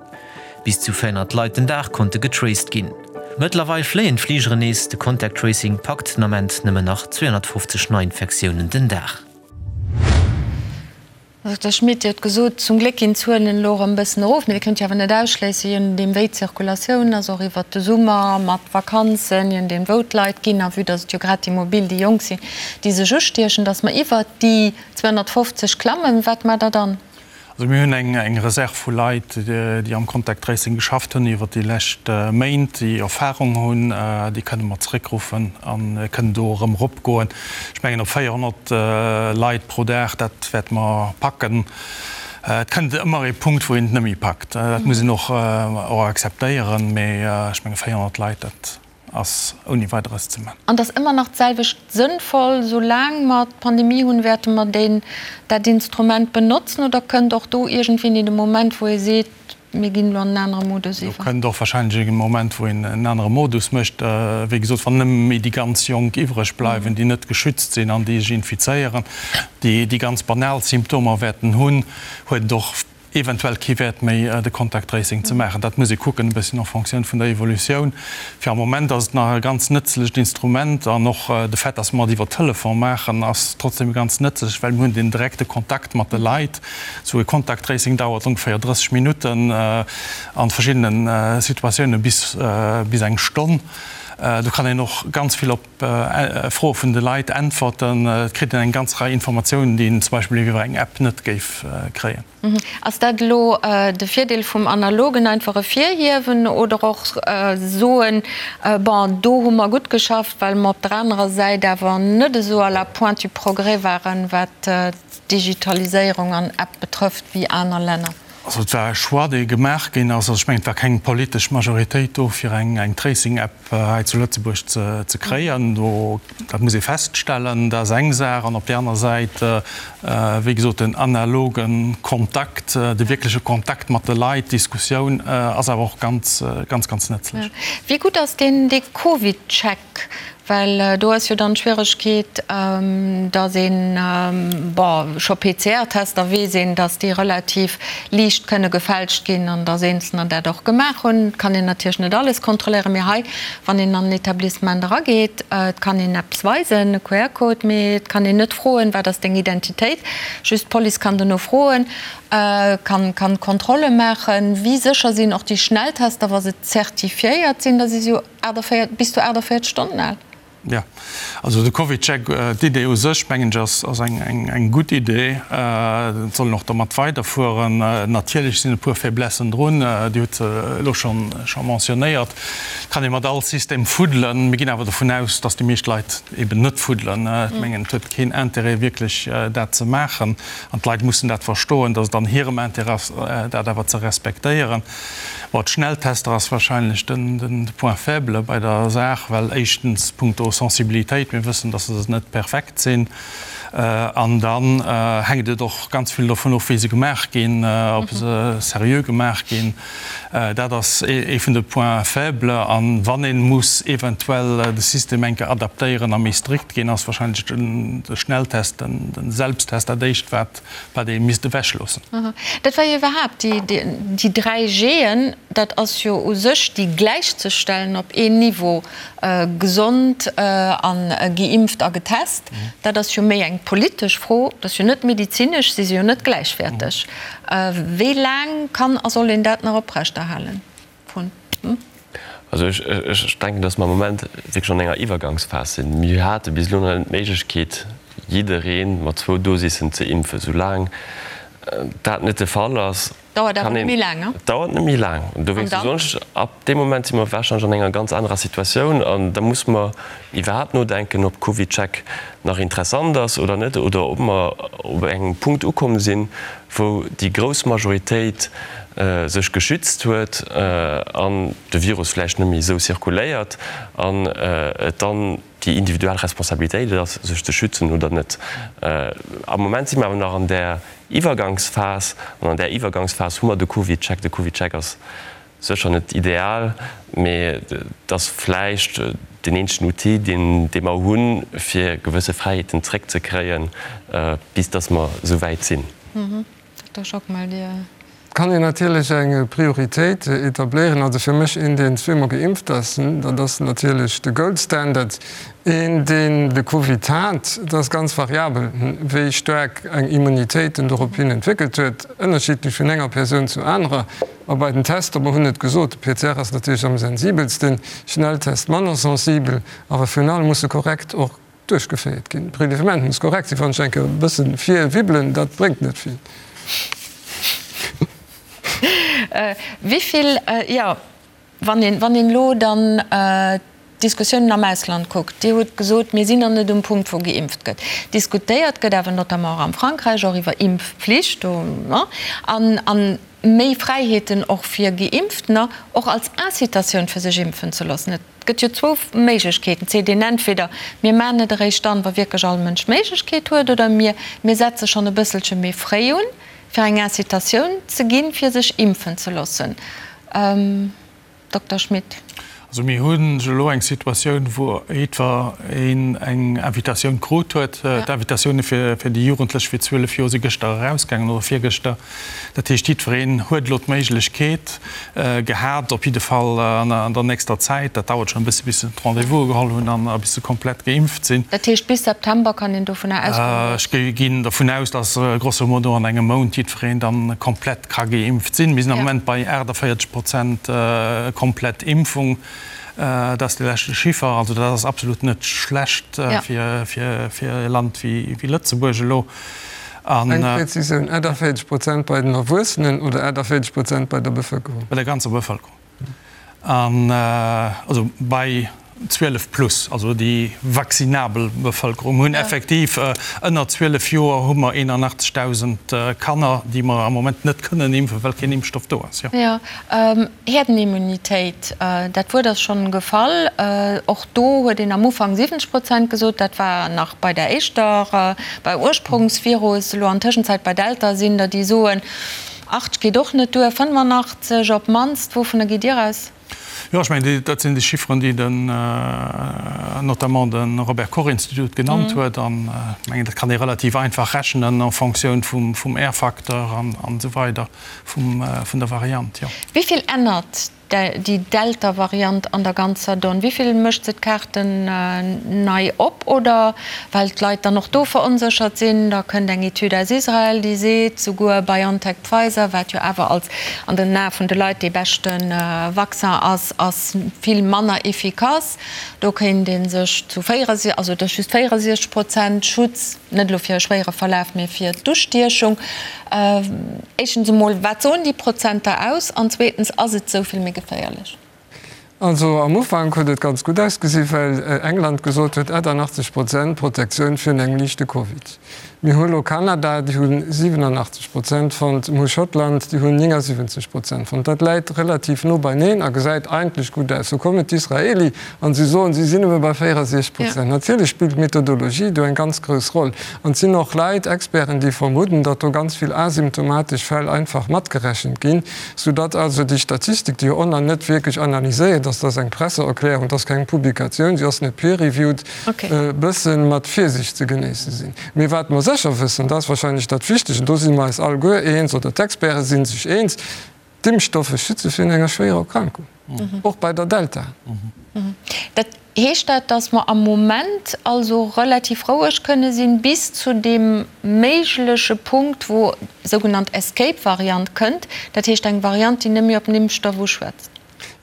Bis zu 400 Leit den Dag konnte getraced ginn. Mëttlerweil fléien d'Fligeren nees, de Contact Tracing packt den Ament nëmmen nach 250 Neiinfektiounen den Dag. Dokter Schmit, Dir hutt gesot, zum Gléck ginn d'Zuelen elo erëm e bëssen erof, mee Dir kënnt jo awer net ausschléissen, je nodeem wéi d'Zirkulatioun ass, och iwwert de Summer mat Vakanzen, je nodeem wou d'Leit ginn a vue datt et jo grad déi Mobil, déi Jonk sinn, déi sech ustiechen, datt mer iwwert déi 250 klammen. Wat maacht Der dann? Also mir hunn eng Reserve vu Leit, déi am Contact Tracing geschafft hunn iwwer déi lescht Méint, déi Erfahrung hunn. Déi kënne mer zeréckruffen a kënnen do erëm eropgoen. Ech mengen op 400 Leit pro Dag, dat wäerte mer packen. Et kënnt ëmmer ee Punkt, wou een et net méi packt. Dat muss een och akzeptéieren. Mee ech menge 400 Leit, dat ass ouni Weideres ze man. An et ass ëmmer nach d'selwecht sënnvoll, soulaang mer d'Pandemie hunn, wäerte mer deen, dat Instrument benotzen oder kënnt och do iergendwéini de Moment, wou ee seet, mir ginn elo an en anere Modus iwwer? Do kënnt och wahrscheinlech e Moment, wou een en anere Modus mécht. Wéi gesot, wann nëmme méi déi ganz Jonk iwwreg bleiwen, déi net geschützt sinn an déi sech infizéieren, déi déi ganz banal Symptomer wäerten hunn, huet et och eventuell kee Wäert méi de Contact Tracing ze maachen. Dat muss ee kucken e bësschen en Fonctioun vun der Evolutioun. Fir am Moment ass et nach e ganz nëtzlecht Instrument an och de Fait, dass mer et iwwer Telefon maachen, ass trotzdem ganz nëtzlech, well mir hunn den direkte Kontakt mat de Leit. Esou e Contact Tracing dauert ongeféier 30 Minutten, a verschiddene Situatioune bis bis eng Stonn. Do kann een och ganz vill op Froe vun de Leit äntwerten. Et kritt een eng ganz Rei Informatiounen, déi een zum Beispill iwwer eng App net géif kréien. Ass dat elo de Virdeel vum Analogen, einfach ervirhiewen oder och soen, bon, do hu mer gutt geschafft, well mer op der anerer Säit awer net esou à la pointe du progrès waren, wat d'Digitaliséierung an App betrëfft, wéi aner Länner? Also et war e Choix, dee gemaach ginn ass. Also ech mengen, et war keng politesch Majoritéit do, fir eng Tracing-App hei zu Lëtzebuerg ze kréien. Do, dat muss ee feststellen, dat ass eng Saach. An op där aner Säit, wéi gesot, den analoge Kontakt, de wierkleche Kontakt mat de Leit, d'Diskussioun ass awer och ganz, ganz, ganz nëtzlech. Wéi gutt ass deen, dee CovidCheck? Well do ass jo dann d'Schwieregkeet, datt een, bon, scho PCR-Tester weess een, datt déi relativ liicht kënne gefälscht ginn an datt Eenzelner dat och gemaach hunn. Et kann een natierlech net alles kontrolléieren, mee hei, wann een an en Etablissement erageet, et kann een eppes weisen, e QR-Code, mee et kann een net froen, wat ass deng Identitéit. Just d'Police kann dono froen, kann kann Kontrolle maachen. Wéi sécher sinn och déi Schnelltester, wa se zertifiéiert sinn? Da si se jo 48, bis zu 48 Stonnen al. Jo, also de CovidCheck, d'Idee u sech, mengen ech, ass ass eng eng eng gutt Idee. Et soll een och domat weiderfueren. Natierlech sinn e puer Faiblessen drun, Dir hutt se elo schonn scho mentionnéiert. Et kann ee mat all System fuddelen. Mir ginn awer dovun aus, datt déi meescht Leit eben net fuddelen. Ech mengen, et huet keen Intérêt wierklech dat ze maachen. An d'Leit mussen dat verstoen, datt et an hirem Intérêt ass, dat awer ze respektéieren. Bon, d'Schnelltester ass wahrscheinlech den Point faible bei der Saach, well éischtens punkto Sensibilitéit, mir wëssen, dass se net perfekt sinn, an dann hänkt et och ganz vill dovun of, wéi se gemaach ginn, ob se seriö gemaach ginn. Dat ass ee vun de Points faibles. A wann ee muss eventuell de System eng Kéier adaptéieren a méi strikt ginn, ass wahrscheinlech de Schnelltest, de Selbsttest dat éischt, wat wat ee misst ewechloossen. Dat war jo iwwerhaapt déi 3 G'en, dat ass jo u sech déi gläichzestellen op een Niveau, gesond a geimpft a getest. Dat ass jo méi eng politesch Fro, dat ass jo net medezinesch, si si jo net gläichwäerteg. Wéi laang kann a soll een dat nach oprechterhalen? Vun. Also ech denken, dass mer am Moment wierklech an enger Iwwergangsphas sinn. Mir hate bis elo nach net d'Méiglechkeet, jidderee mat zwou Dosissen ze impfen. Soulaang dat net de Fall ass, Dauert awer net méi laang, ne? Dauert net méi laang. An dowéinst soen ech, ab deem Moment si mer warscheinlech an enger ganz anerer Situatioun an da muss mer iwwerhaapt nodenken, ob CovidCheck nach interessant ass oder net oder ob mer op engem Punkt ukomm sinn, wou déi grouss Majoritéit sech geschützt huet an de Virus vläicht net méi esou zirkuléiert an et dann déi individuell Responsabilitéit ass, sech ze schützen oder net. Am Moment si mer awer nach an där Iwwergangsphas an an där Iwwergangsphas hu mer de CovidCheck. De CovidCheck ass sécher net ideal, mee et ass vläicht deen eenzegen Outil, deen dee mer hunn, fir gewësse Fräiheeten zréckzekréien, bis datt mer esou wäit sinn. Dokter Schockmel, Dir. Et kann een natierlech eng Prioritéit etabléieren. Also fir mech een, deen zweemol geimpft ass, dat ass natierlech de Gold Standard. Een, deen de Covid hat, dat ass ganz variabel, wéi staark eng Immunitéit en dorop hin entwéckelt huet, ënnerschiddlech vun enger Persoun zur anerer. A bei den Tester, mer hunn et gesot, de PCR ass natierlech am sensibelsten, Schnelltest manner sensibel, awer virun allem muss e korrekt och duerchgeféiert ginn. Prelevement muss korrekt sinn. Wann ech eng Kéier e bësse virwibbelen, dat bréngt net vill. Wéi vill, jo, wann een, wann een elo dann d'Diskussiounen am Ausland kuckt, Dir hutt gesot, mir sinn nach net um Punkt, wou geimpft gëtt. Diskutéiert gëtt awer notamment och am Frankräich och iwwer Impfpflicht do, an, an méi Fräiheeten och fir Geimpftener, och als Incitatioun fir sech impfen ze loossen. Et gëtt jo zwou Méiglechkeeten, et seet een entweder, mir maachen et eréischt dann, wa wierklech all Mënsch d'Méiglechkeet huet, oder mir, mir setze schonn e bësselche méi fréi un, fir eng Incitatioun ze ginn, fir sech impfen ze loossen. Dokter Schmit. Also mir hunn elo eng Situatioun, wou jiddwer een eng Invitatioun krut huet. D'Invitatioune fir déi Jugendlech fir 12 Joer si gëschter erausgaangen oder virgëschter. Dat heescht, jiddwereen huet elo d'Méiglechkeet gehat, op jidde Fall an der nächster Zäit, dat dauert schonn e bësse bis se d'Rendez-vouse geholl hunn an bis se komplett geimpft sinn. Dat heescht, bis September kann een dovunner ausgoen, datt. Ech ginn dervun aus, datt grosso modo an engem Mount jiddwereen dann komplett ka geimpft sinn. Mir sinn am Moment bei 48 Prozent komplett Impfung. Dat ass de leschte Chiffer. Also dat ass absolut net schlecht fir e Land wéi Lëtzebuerg elo. Eng Präzisioun, 48 Prozent bei den Erwuessenen oder 48 Prozent bei der Bevëlkerung? Bei der ganzer Bevëlkerung. An also bei 12 plus, also déi vaccinabel Bevëlkerung. Mir hunn effektiv ënner 12 Joer hu mer 81.000 Kanner, déi mer am Moment net kënnen impfen, well keen Impfstoff do ass. Jo. Herdenimmunitéit, dat Wuert ass schonn gefall. Och do huet een am Ufank 70 Prozent gesot. Dat war nach bei der éischter, beim Ursprungsvirus. Elo an Tëschenzäit bei Delta sinn der, déi soen, 80 geet och net duer, 85 op d'mannst. Wouvunner gitt Dir aus? Jo, ech mengen, dat sinn déi Chifferen, déi den, notamment de Robert Koch Institut genannt huet. An ech mengen, dat kann ee relativ einfach rechnen en Fonctioun vum R-Facteur an esou weider vum, vun der Variant, jo. Wéi vill ännert déi Delta-Variant an der ganzer Donn? Wéi vill mécht se d'Kaarten nei op? Oder well d'Leit dann och do veronséchert sinn, da kënnt eng Etüd aus Israel, déi seet, souguer BioNTech-Pfizer, wat jo awer als an den Ae vun de Leit dee beschte Vaccin ass, ass vill manner efficace. Do kéint ee sech zu 64, also et ass just 64 Prozent Schutz, net elo fir e schwéiere Verlaf, mee fir d'Ustiechung. Éischtens emol, wat soen déi Prozenter aus? An zweetens, ass et esou vill méi geféierlech? Also am Ufank huet et ganz gutt ausgesi well England gesot huet 88 Prozent Protektioun virun engem liichte Covid. Mir hu lo Kanada, déi hu 87 Prozent fonnt, mir hu Schottland, déi hunn 79 Prozent fonnt. Dat läit relativ no beineen a gesäit eigentlech gutt aus. Lo kommen d'Israeli an si soen, si sinn nëmme bei 64 Prozent. Natierlech spillt d'Methodologie do eng ganz grouss Roll an et sinn och Leit, Experten, déi vermudden, datt do ganz vill asymptomatesch Fäll einfach matgerechent ginn. Soudatt also déi Statistik, déi jo och nach net wierklech analyséiert ass, dat ass eng Presseerklärung, dat ass keng Publikatioun, si ass net peer-reviewed, e bësse mat Virsicht ze genéisse sinn. Mee wat mer sécher wëssen, dat ass wahrscheinlech dat Wichtegt, an do si mer eis alleguer eens, oder d'Experte si sech eens, D'Impfstoffe schütze virun enger schwéierer Erkrankung, och bei der Delta. Dat Heescht dat, datt mer am Moment also relativ roueg kënne sinn, bis zu deem méigleche Punkt, wou sougenannt Escape-Variant kënnt, dat heescht eng Variant, déi net méi op den Impfstoff uschwätzt?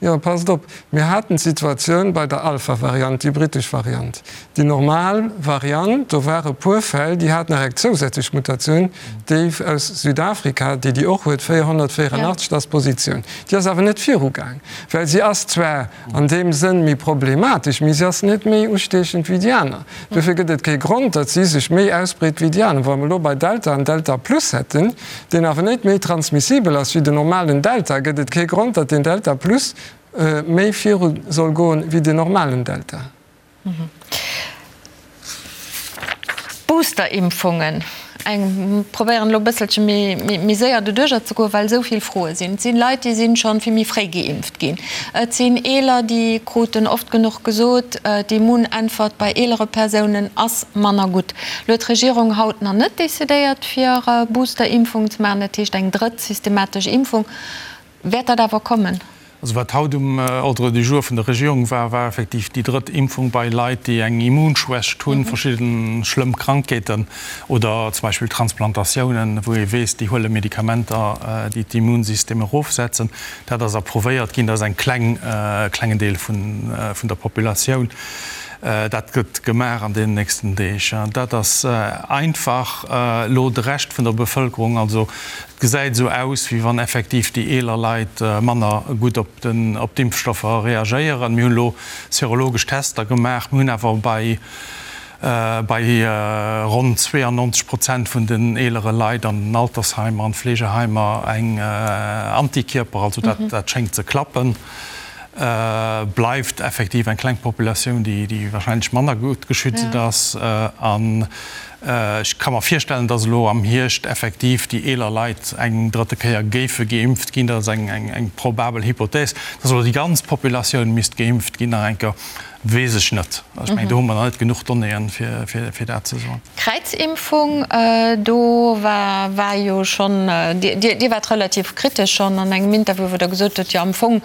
Jo, passt op, mir haten d'Situatioun bei der Alpha-Variant, déi britesch Variant. Déi normal Variant, do ware puer Fäll, déi hat nach eng zousätzlech Mutatioun, déi aus Südafrika, déi déi och huet, 484, dat ass d'Positioun. Déi ass awer net virugaang, well si ass zwar An deem Sënn méi problematesch, mee si ass net méi ustiechend wéi déi aner. Dofir gëtt et kee Grond, datt si sech méi ausbreet wéi déi aner. Wa mer elo bei Delta en Delta Plus hätten, deen awer net méi transmissibel ass wéi den normalen Delta, gëtt et kee Grond, datt deen Delta Plus méi viru soll goen wéi den normalen Delta. Boosterimpfungen, eng probéieren elo e bësselche méi séier doduercher ze goen, well esou vill Froe sinn. Et sinn Leit, déi sinn schonn vill méi fréi geimpft ginn. Et sinn Eeler, déi kruten oft genuch gesot, d'Immunäntwert bei eelere Persounen ass manner gutt. Elo huet d'Regierung haut nach net decidéiert, fir Boosterimpfungen ze maachen, dat heescht eng drëtt systematesch Impfung. Wäert dat awer kommen? Also wat haut um Ordre du jour vun der Regierung war, war effektiv déi drëtt Impfung bei Leit, déi eng Immunschwächt hunn, verschidde schlëmm Krankheeten oder zum Beispill Transplantatiounen, wou ee weess, déi huele Medikamenter, déi d'Immunsystem erofsetzen. Dat ass approuvéiert ginn. Dat ass eng kleng, klengen Deel vun der Populatioun. Dat gëtt gemaach an deenen nächsten Deeg. Dat ass einfach elo de Rescht vun der Bevëlkerung, also Et gesäit esou aus, wéi wann effektiv déi eeler Leit manner gutt op d'Impfstoffer reagéieren. Mir hunn elo serologesch Tester gemaach. Mir hunn awer bei bei ronn 92 Prozent vun den eelere Leit an den Altersheimer an Fleegeheimer eng Antikierper. Also dat dat schéngt ze klappen. Bleift effektiv eng kleng Populatioun, déi warscheinlech manner gutt geschützt ass. An Ech ka mer virstellen, dass elo am Hierscht effektiv déi eeler Leit eng drëtte Kéier géife geimpft ginn. Dat ass eng probabel Hypothèse. Dass elo déi ganz Populatioun misst geimpft ginn nach eng Kéier, weess ech net. Ech mengen, do hu mer nach net genuch Donnéeën, fir dat ze soen. Kräizimpfung, do war war jo schonn, Dir waart relativ kritesch schonn an engem Interview, wou Der gesot hutt, jo am Fong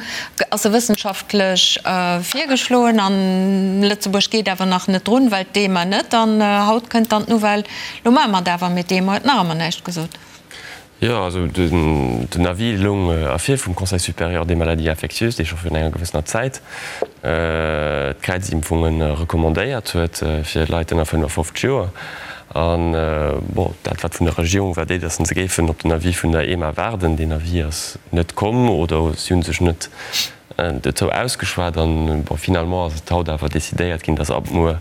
ass se wëssenschaftlech virgeschloen an Lëtzebuerg geet awer nach net drun, well d'EMA net. An haut kënnt dann d'Nouvelle, lo maache mer et awer, mee d'EMA huet nach ëmmer näischt gesot. Jo, also den Avis loung ervir vum Conseil supérieur des maladies infectieuses, dee scho virun enger gewëssener Zäit d'Kräizimpfunge recommandéiert huet fir Leit ënner 55 Joer. An, bon, dat wat vun der Regierung war, déi, datt se géifen op den Avis vun der EMA waarden. Deen Avis ass net komm oder si hu sech net dozou ausgeschwat. An, bon, finalement ass et haut awer decidéiert ginn, datt ab muer.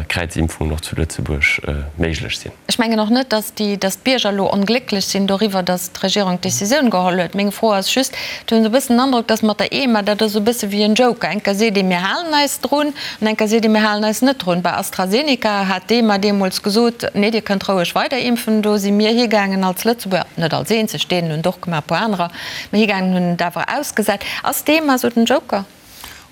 Kräizimpfungen och zu Lëtzebuerg méiglech sinn. Ech mengen och net, datt déi, datt d'Bierger elo onglécklech sinn doriwwer, datt d'Regierung d'Décisioun geholl huet. Meng Fro ass just, et hunn esou e bëssen den Androck, datt mat der EMA, dat ass esou e bësse wéi en Joker. Eng Kéier seet ee mir halen eis drun an eng Kéier seet ee mir halen eis net drun. Bei AstraZeneca hat d'EMA deemools gesot, nee Dir kënnt roueg weider impfen. Do si mir higaangen als Lëtzebuerger, net als eenzeg, d'Dänen hunn et och gemaach, e puer anerer, mä higaangen hunn et awer ausgesat. Ass d'EMA esou den Joker?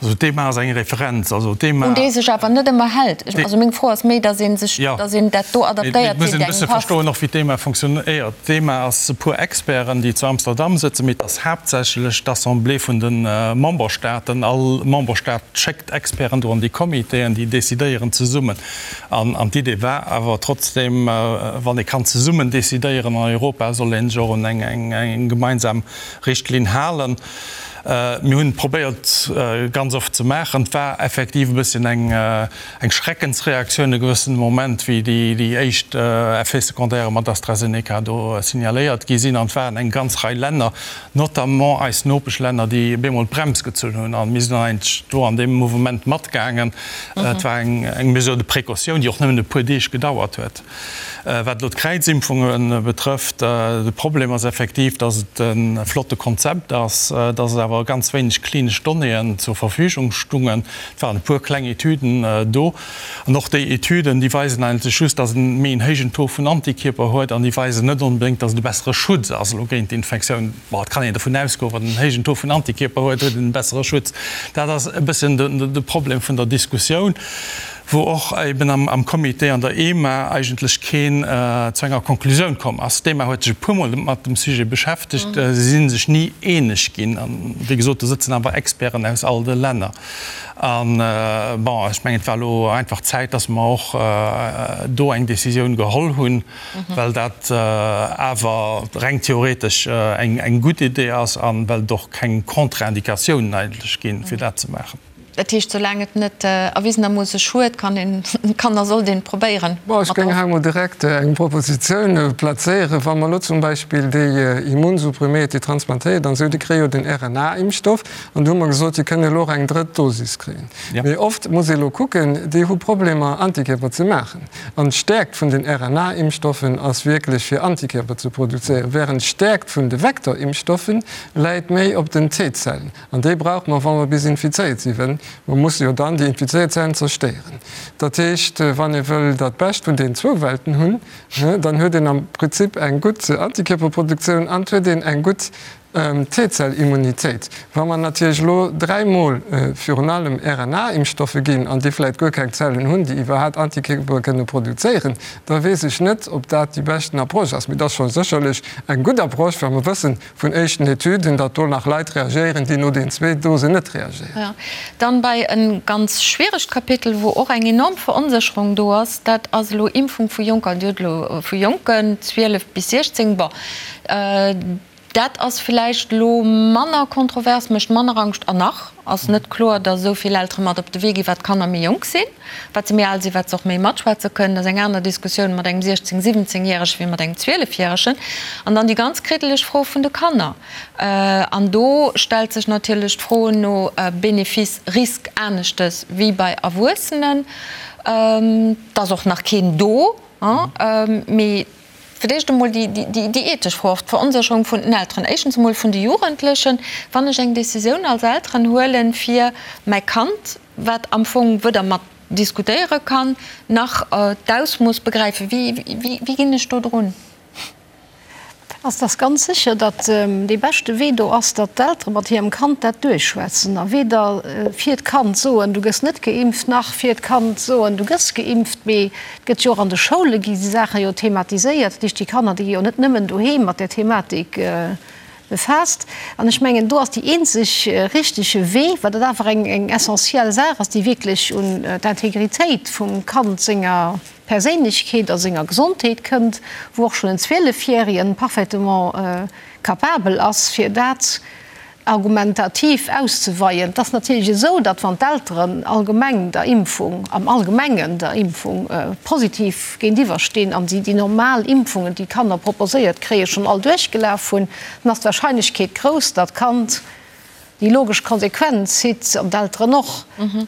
Also d'EMA ass eng Referenz. Also d'EMA. Un déi sech awer net ëmmer hält. Also meng Fro ass méi, datt ee sech, datt een dat do adaptéiert, wéi et engem passt. Et muss een e bësse verstoen och, wéi d'EMA funktionéiert. D'EMA ass e puer Experten, déi zu Amsterdam sëtzen, mee et ass haaptsächlech d'Assemblée vun de Memberstaaten. All Memberstaat schéckt Experten do an déi Comitéen, déi decidéieren zesummen. An d'Idee war awer trotzdem, wann ee kann zesummen decidéieren an Europa, soll ee sech och un eng gemeinsam Richtlinn halen. Mir hunn et probéiert ganz oft ze maachen. Et war effektiv e bësschen eng Schreckensreaktioun e gewëssene Moment, wéi déi éischt Effets secondaires mat AstraZeneca do signaléiert gi sinn. An et waren eng ganz Rei Länner, notamment eis Nopeschlänner, déi bemol d'Brems gezunn hunn. A mir sinn dann eigentlech do an deem Mouvement matgaangen. Et war eng Mesure de précaution, déi och nëmmen e puer Deeg gedauert huet. Wat elo d'Kräizimpfunge betrëfft, de Problem ass effektiv, datt et e flotte Konzept ass, datt et awer ganz wéineg klinesch Donnéeën zur Verfügung stungen. Et waren e puer kleng Etüden do. An och déi Etüden, déi weisen eigentlech just, datt en méi en héijen Taux vun Antikierper huet an déi weisen net onbedéngt, datt et e bessere Schutz ass elo géint d'Infektioun. Bon, et kann een dovun ausgoen, wann en héijen Taux vun Antikierper huet, huet en e bessere Schutz. Dat ass e bësschen de Problem vun der Diskussioun. wou och eben am Comité an der EMA eigentlech keen zu enger Konklusioun komm ass. D'EMA huet sech e puermol mat dem Sujet beschäftegt, si si sech ni eeneg ginn. An, wéi gesot, do sëtzen awer Experten aus all de Länner. An, bon, ech mengen, et war elo einfach Zäit, dass mer och do eng Décisioun geholl hunn, well dat awer reng theoretesch eng gutt Idee ass a well et och keng Contre-indicatiounen eigentlech ginn, fir dat ze maachen. Dat heescht, soulaang et net erwisenermoosse schued, kann een, kann a sollt een et probéieren. Bon, ech géing hei emol direkt eng Propositioun plazéieren. Wa mer elo zum Beispill déi Immunsuppriméiert, déi transplantéiert an esou, déi kréie jo den RNA-Impfstoff an do hu mer gesot, déi kënnen elo och eng drëtt Dosis kréien. Mee oft muss ee elo kucken, déi hu Problemer Antikierper ze maachen. An d'Stäerkt vun den RNA-Impfstoffen ass wierklech fir Antikierper ze produzéieren, wärend d'Stäerkt vun de Vektorimpfstoffen läit méi op den T-Zellen. An déi brauche mer, wa mer bis infizéiert sinn, well mer musse jo dann déi infizéiert Zellen zerstéieren. Dat heescht, wann ee wëll dat Bescht vun deenen zwou Welten hunn, dann huet een am Prinzip eng gutt Antikierperproduktioun an et huet een eng gutt T-Zell-Immunitéit. Wa mer natierlech elo dräimol virun allem RNA-Impfstoffe ginn an déi vläicht guer keng Zellen hunn, déi iwwerhaapt Antikierpere kënne produzéieren, da weess ech net, ob dat déi beschten Approche ass. Mee et ass scho sécherlech eng gutt Approche, well mer wëssen, Vun éischten Etüden, datt do nach Leit reagéieren, déi no den zwee Dosen net reagéieren. Jo. Dann bei e ganz schwieregt Kapitel, wou och eng enorm Veronsécherung do ass, dat ass elo Impfung vu Jonker. Dir hutt elo vu Jonken, 12 bis 16, bon, dat ass villäicht elo manner kontrovers, mécht manner Angscht. An nach ass net kloer, datt esou vill Eltere mat op de Wee ginn, wat d'Kanner méi jonk sinn. Wat se méi al sinn, wat se och méi matschwätze kënnen. Dat ass eng aner Diskussioun mat engem 16-, 17 Järege wéi mat engem 12 Järegen. An dann déi ganz kriddeleg Fro vun de Kanner. An do stellt sech natierlech d'Fro no Bénéfice, Risque aneschtes wéi bei Erwuessenen. Et ass och nach keen do, mee Fir d'éischt emol déi ethesch Fro, och d'Veronsécherung vun den Elteren, éischtens emol vun de Jugendlechen. Wann ech eng Décisioun als Elteren huelen, fir mäi Kand, wat am Fong weder mat diskutéiere kann, nach d'Ausmooss begräifen, wéi ginn ech do drun? Ass dass ganz sécher, datt dee beschte Wee do ass, datt d'Eltere mat hirem Kand dat duerchschwätzen a weder fir d'Kand soen, du gëss net geimpft, nach fir d'Kand soen, du gëss geimpft, mee Et gëtt jo och an de Schoule gi déi Saache jo thematiséiert. Dat heescht, déi Kanner, déi gi jo net nëmmen doheem mat där Thematik befaasst. An ech mengen, do ass déi eenzeg richtege Wee, well dat awer eng eng essentiell Saach ass, déi wierklech un d'Integritéit vum Kand senger Perséinlechkeet a senger Gesondheet kënnt, wou och schonn en Zwielefjärien parfaitement capabel ass, fir dat argumentativ auszeweien. Et ass natierlech esou, datt wann d'Elteren allgemeng der Impfung, am Allgemengen der Impfung positiv géintiwwer stinn an si déi normal Impfungen, déi d'Kanner proposéiert kréien, schonn all duerchgelaf hunn, dann ass d'Wahrscheinlechkeet grouss, datt d'Kand. Déi logesch Konsequenz zitt, an d'Elteren och,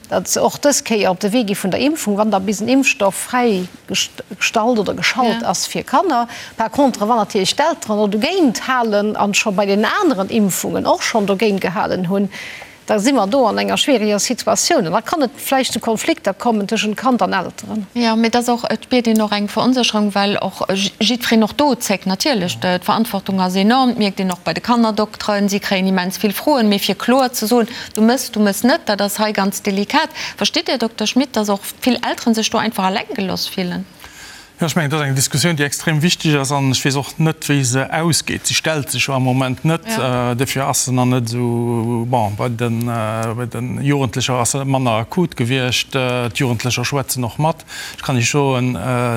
datt se och dës Kéier op de Wee gi vun der Impfung, wann da bis en Impfstoff fräi gestallt oder geschalt ass fir Kanner. Par contre, wann natierlech d'Elteren och dogéint halen an scho bei den aneren Impfungen och schonn dogéint gehalen hunn, da si mer do an enger schwieriger Situatioun an da kann et vläicht zu Konflikter kommen tëschent Kand an Elteren. Jo, mee et ass och, et spiert een och eng Veronsécherung, well och jiddwereen och do zéckt. Natierlech, d'Verantwortung ass enorm, dat mierkt een och bei de Kannerdokteren, si kréien immens vill Froen, mee fir kloer ze soen, du mëss, du mëss net, dat ass hei ganz delikat. Verstitt Dir, Dokter Schmit, datt och vill Elteren sech do einfach eleng gelooss fillen? Jo, ech mengen, dat ass eng Diskussioun, déi extrem wichteg ass an ech weess och net, wéi se ausgeet. Si stellt sech jo am Moment net, dofir ass se nach net esou, bon, bei de, bei de Jugendlecher ass se manner akut gewiescht. D'Jugendlecher schwätzen och mat. Ech kann Iech soen,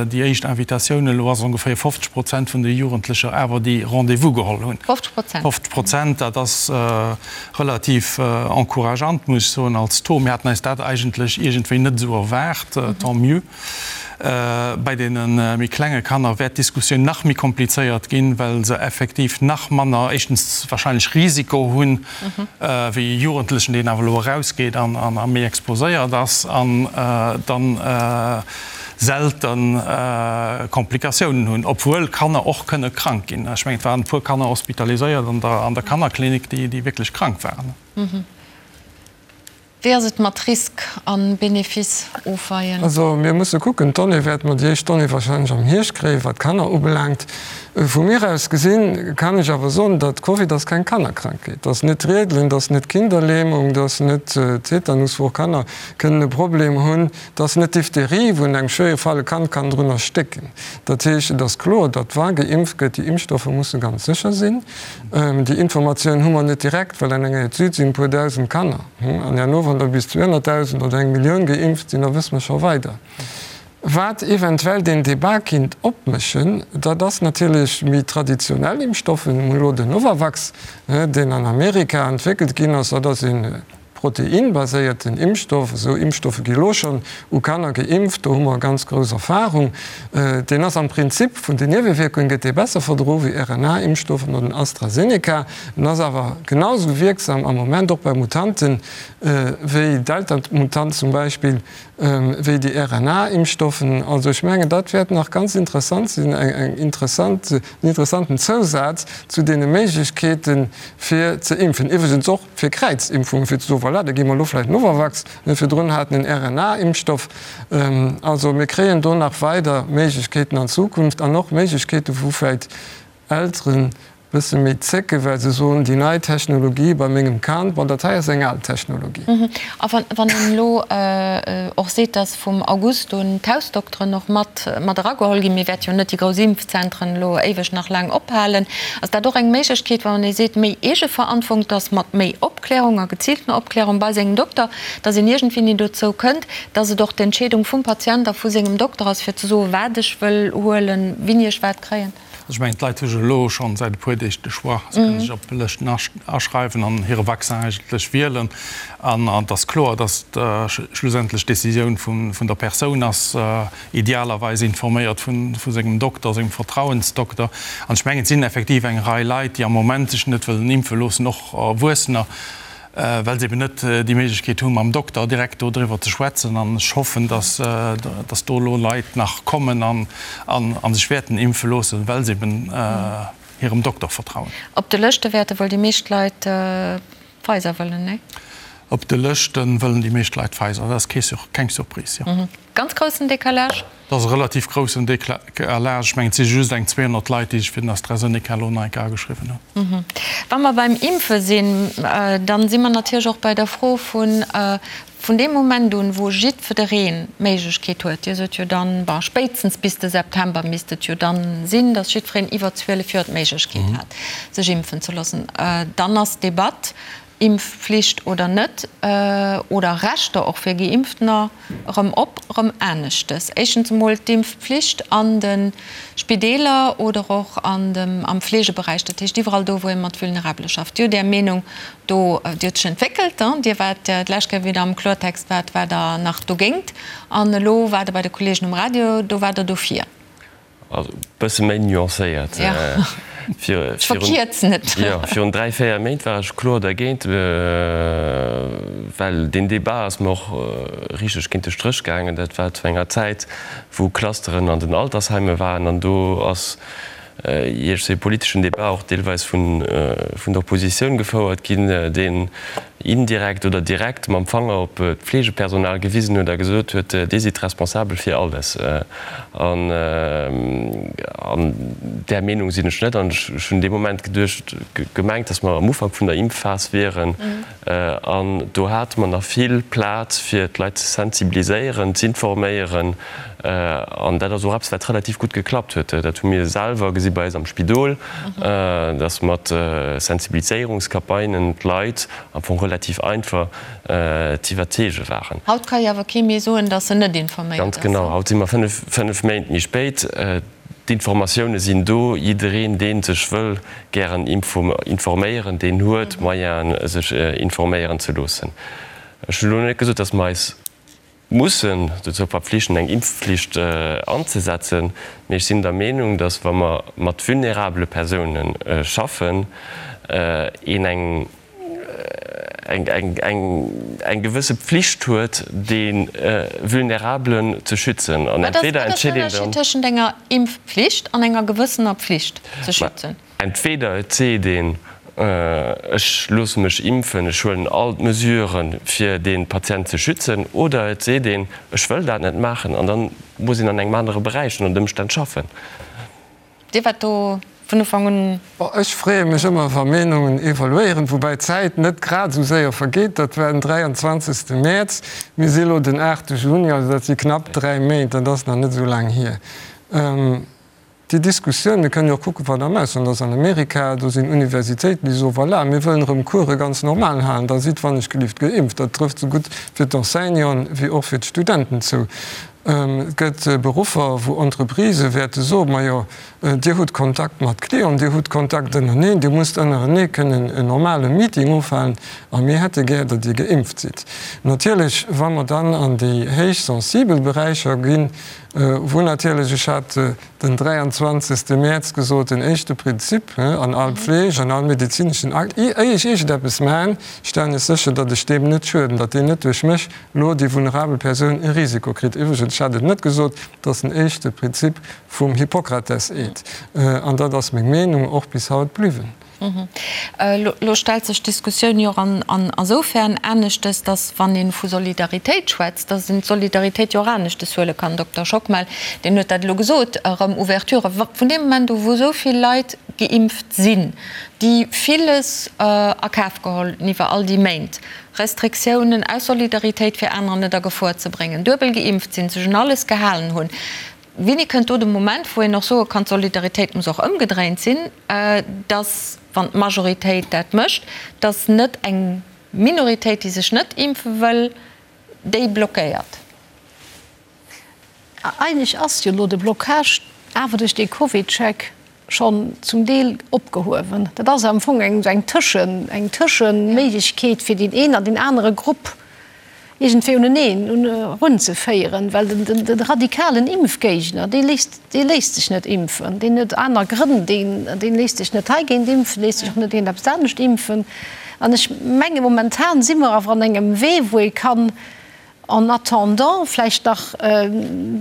déi éischt Invitatioun elo ass ongeféier 50 Prozent vun de Jugendlecher awer, déi Rendez-vous geholl hunn. 50 Prozent? 50 Prozent, dat ass relativ encourageant, muss ech soen, als Taux. Mir haten eis dat eigentlech iergendwéi net esou erwaart, tant mieux. Bei deene méi klenge Kanner wäert d'Diskussioun nach méi komplizéiert ginn, well se effektiv nach manner, éischtens wahrscheinlech Risiko hunn, wéi e Jugendlechen, deen awer elo erausgeet an méi exposéiert ass an dann selte Komplikatiounen hunn, obwuel Kanner och kënne krank ginn. Ech mengen, et waren e puer Kanner hospitaliséiert an der Kannerklinik, déi wierklech krank waren. Wéi ass et mat Risk an Benefice ofweien? Also mir musse kucken, d'Donnée wäerte mer, déi éischt Donnée wahrscheinlech am Hierscht kréien, wat d'Kanner ubelaangt. Vu mir aus gesinn kann ech awer soen, datt Covid ass keng Kannerkrankheet. Dat ass net d'Riedelen, dat ass net d'Kinderlähmung, dat ass net Tetanus, wou och Kanner kënnen e Problem hunn, dat ass net Diphtherie, wou an engem schwéiere Fall e Kand kann drun erstécken. Dat heescht, et ass kloer, datt wa geimpft gëtt, déi Impfstoffer musse ganz sécher sinn. Déi Informatioun hu mer net direkt, well an enger Etüd sinn e puer dausend Kanner. An herno, wann der bis 200.000 oder eng Millioun geimpft sinn, da wësse mer scho weider. Wat eventuell deen Debat kinnt opméchen, dat ass natierlech méi traditionell Impfstoffen. Mir hunn elo den Novavax, deen an Amerika entwéckelt ginn ass. Dat ass ee Proteinbaséierten Impfstoff, esou Impfstoffe gi lo schonn u Kanner geimpft, do hu mer ganz grouss Erfahrung. Deen ass am Prinzip vun den Niewewierkungen gëtt dee besser verdro wéi RNA-Impfstoffen oder den AstraZeneca. En ass awer genau esou wierksam am Moment och bei Mutanten wéi Delta-Mutant zum Beispill wéi déi RNA-Impfstoffen. Also ech mengen dat wäert nach ganz interessant sinn, eng interessant, en interessanten Zousaz zu deene Méiglechkeete fir ze impfen. Iwwregens och fir Kräizimpfungen, fir ze soen, voilà, da gi mer elo vläicht Novavax, mir virdrun haten en RNA-Impfstoff. Also mir kréien do nach weider Méiglechkeeten an Zukunft an och Méiglechkeeten, wou vläicht Elteren e bësse méi zécken, well se soen, déi nei Technologie bei mengem Kand, bon, dat hei ass eng al Technologie. A wann een elo och seet, datt vum August un d'Hausdokteren och mat mat erageholl ginn, mir wäerte jo net déi grouss Impfzentren elo éiweg nach laang ophalen, ass dat och eng Méiglechkeet, wann ee seet, méi Eegeverantwortung, dass mat méi Opklärung a geziiltener Opklärung bei sengem Dokter, dass een iergendwéini dozou kënnt, dass et och d'Entscheedung vum Patient a vu sengem Dokter ass, fir ze soen, wat ech wëll huelen, wéini ech wat kréien? Also ech mengen, d'Leit hu jo elo schonn säit e puer Deeg de Choix. Se kënnen sech op Lëschten aschreiwen an hire Vaccin eigentlech wielen. An et ass kloer, dass schlussendlech d'Decisioun vun der Persoun ass, idealerweis informéiert vu sengem Dokter, sengem Vertrauensdokter. An ech mengen, et sinn effektiv eng Rei Leit, déi am Moment sech net wëllen impfe loossen, och Erwuessener, well se eben net déi Méiglechkeet hunn, mam Dokter direkt do driwwer ze schwätzen. An ech hoffen, dass, dass do elo Leit nach kommen an, a sech wäerten impfe loossen, well se eben hirem Dokter vertrauen. Op de Lëschte wäerte wuel déi meescht Leit Pfizer wëllen, nee? Op de Lëschte wëllen déi meescht Leit Pfizer. Dat ass keng Surprise, jo. Ganz groussen Décalage? Dat ass e relativ groussen Décalage. Ech mengen, et si just eng 200 Leit, déi sech fir den AstraZeneca elo nei ageschriwwen hunn. Wa mer beim Impfe sinn, da si mer natierlech och bei der Fro vun, vun deem Moment un, wou jiddwereen d'Méiglechkeet huet, Dir sot jo dann, bon, spéitstens bis de September misst et jo dann sinn, datt jiddwereen iwwer 12 Joer d'Méiglechkeet hat, sech impfen ze loossen, dann ass d'Debatt, Impfflicht oder net, oder Rechter och fir Geimpftener, erëm op, erëm aneschtes. Éischtens emol d'Impfpflicht an de Spideeler oder och an dem, am Fleegeberäich, dat heescht iwwerall do, wou ee mat Vulnerabele schafft. Dir hutt Är Meenung do, déi huet sech entwéckelt. Dir waart d'lescht Kéier, wéi Der am Kloertext waart, waart Der nach dogéint an elo waart Der bei de Kolleegen um Radio, do waart Der dofir. Also e bësse méi nuancéiert. Ech verkierzen et. Jo, virun 3, 4 Méint war ech kloer dergéint, well deen Débat ass mer och richteg géint de Stréch gaangen. Dat war zu enger Zäit, wou Clusteren an den Altersheimen waren an do ass iergst e politeschen Débat och deelweis vun der Oppositioun gefouert ginn, deen indirekt oder direkt mam Fanger op d'Fleegepersonal gewisen huet a gesot huet, Dir sidd responsabel fir alles. An där Meenung sinn ech net. An ech hunn dee Moment geduecht, gemengt, datt mer am Ufank vun der Impfphas wieren. An do hate mer nach vill Plaz, fir d'Leit ze sensibiliséieren, z'informéieren. An dat ass och eppes, wat relativ gutt geklappt huet. Dat hu mir selwer gesi bei eis am Spidol, datt mat Sensibiliséierungscampagnen d'Leit am Fong relativ einfach z'iwwerzeege waren. Haut ka jo awer kee méi soen, datt en net informéiert ass. Ganz genau. Haut si mer fënnf Méint méi spéit. D'Informatioune sinn do. Jiddereen, dee sech wëll gären informéieren, deen huet d'Moyenen, sech informéieren ze loossen. Ech hunn elo net gesot, datt mer eis mussen dozou verpflichten, eng Impfflicht anzesetzen, mee ech sinn der Meenung, datt, wa mer mat vulnerabele Persoune schaffen, een eng eng gewësse Pflicht huet, dee Vulnerabelen ze schützen. An entweder entscheet een dann. Wat ass den Ënnerscheed tëschent enger Impfpflicht an enger gewëssener Pflicht ze schützen? Entweder et seet een, ech loosse mech impfen, ech huelen all d'Mesuren, fir dee Patient ze schützen, oder et seet een, ech wëll dat net maachen, an da muss een an engem anere Beräich ënner den Ëmstänn schaffen. Dir waart do vun Ufank un. Bon, ech freeë mech ëmmer, wa Meenungen evoluéieren, woubäi d'Zäit net grad esou séier vergeet. Dat war den 23. Mäerz, mir si elo den 8. Juni, also dat si knapp 3 Méint, dat ass nach net esou laang hier. Déi Diskussioun, mir kënnen jo och kucken, wat am Ausland ass, an Amerika, do sinn Universitéiten, déi soen, voilà, mir wëllen erëm Course ganz normal halen, da sidd wannechgelift geimpft. Dat trëfft esou gutt fir d'Enseignanten wéi och fir d'Studenten zou. Et gëtt Beruffer, wou Entreprisë wäerte soen, majo, Dir hutt Kontakt mat Clienten, Dir hutt Kontakt ënnereneen, Dir musst ënnerenee kënnen en normale Meeting ofhalen a mir hätte gär, datt Dir geimpft sidd. Natierlech, wa mer dann an déi héich sensibel Beräicher ginn, Wou natierlech, ech hat den 23. Mäerz gesot, den éischte Prinzip an all Pfleg, an all medezineschen Akt, éier ech iergendeppes maachen, stellen ech sécher, datt ech deem net schueden, datt deen net duerch mech elo, déi vulnerabel Persoun, e Risiko kritt. Iwwregens, ech hat et net gesot, dat ass den éischte Prinzip vum Hippokrates-Eed. An dat ass meng Meenung och bis haut bliwwen. Elo stellt sech d'Diskussioun jo och an esoufern aneschtes, datt wann ee vu Solidaritéit schwätzt, datt een d'Solidaritéit jo och aneschtes huele kann. Dokter Schockmel, deen huet dat elo gesot, erëm Ouverture vun deem Moment u wou esou vill Leit geimpft sinn, déi villes a Kaf geholl hunn iwwer all déi Méint, Restriktiounen aus Solidaritéit fir anerer net a Gefor ze bréngen, duebel geimpft sinn, sech un alles gehalen hunn. Wéini kënnt do de Moment, wou een och soe kann, d'Solidaritéit muss och ëmgedréint sinn, dass, wann d'Majoritéit dat mécht, dass net eng Minoritéit, déi sech net impfe wëll, déi blockéiert? Eigentlech ass jo elo de Blocage awer duerch dee CovidCheck schonn zum Deel opgehuewen. Dat ass am Fong eng Tëschen, eng Tëschenméiglechkeet, fir deen een an deen anere Grupp iergendwéi uneneen erunzeféieren, well de radikalen Impfgéigner, dee léisst, dee léisst sech net impfen, deen huet aner Grënn, deen, deen léisst sech net heigéint impfen, léisst sech och net géint eppes anescht impfen. An ech menge momentan si mer awer an engem Wee, wou ee kann En attendant vläicht nach,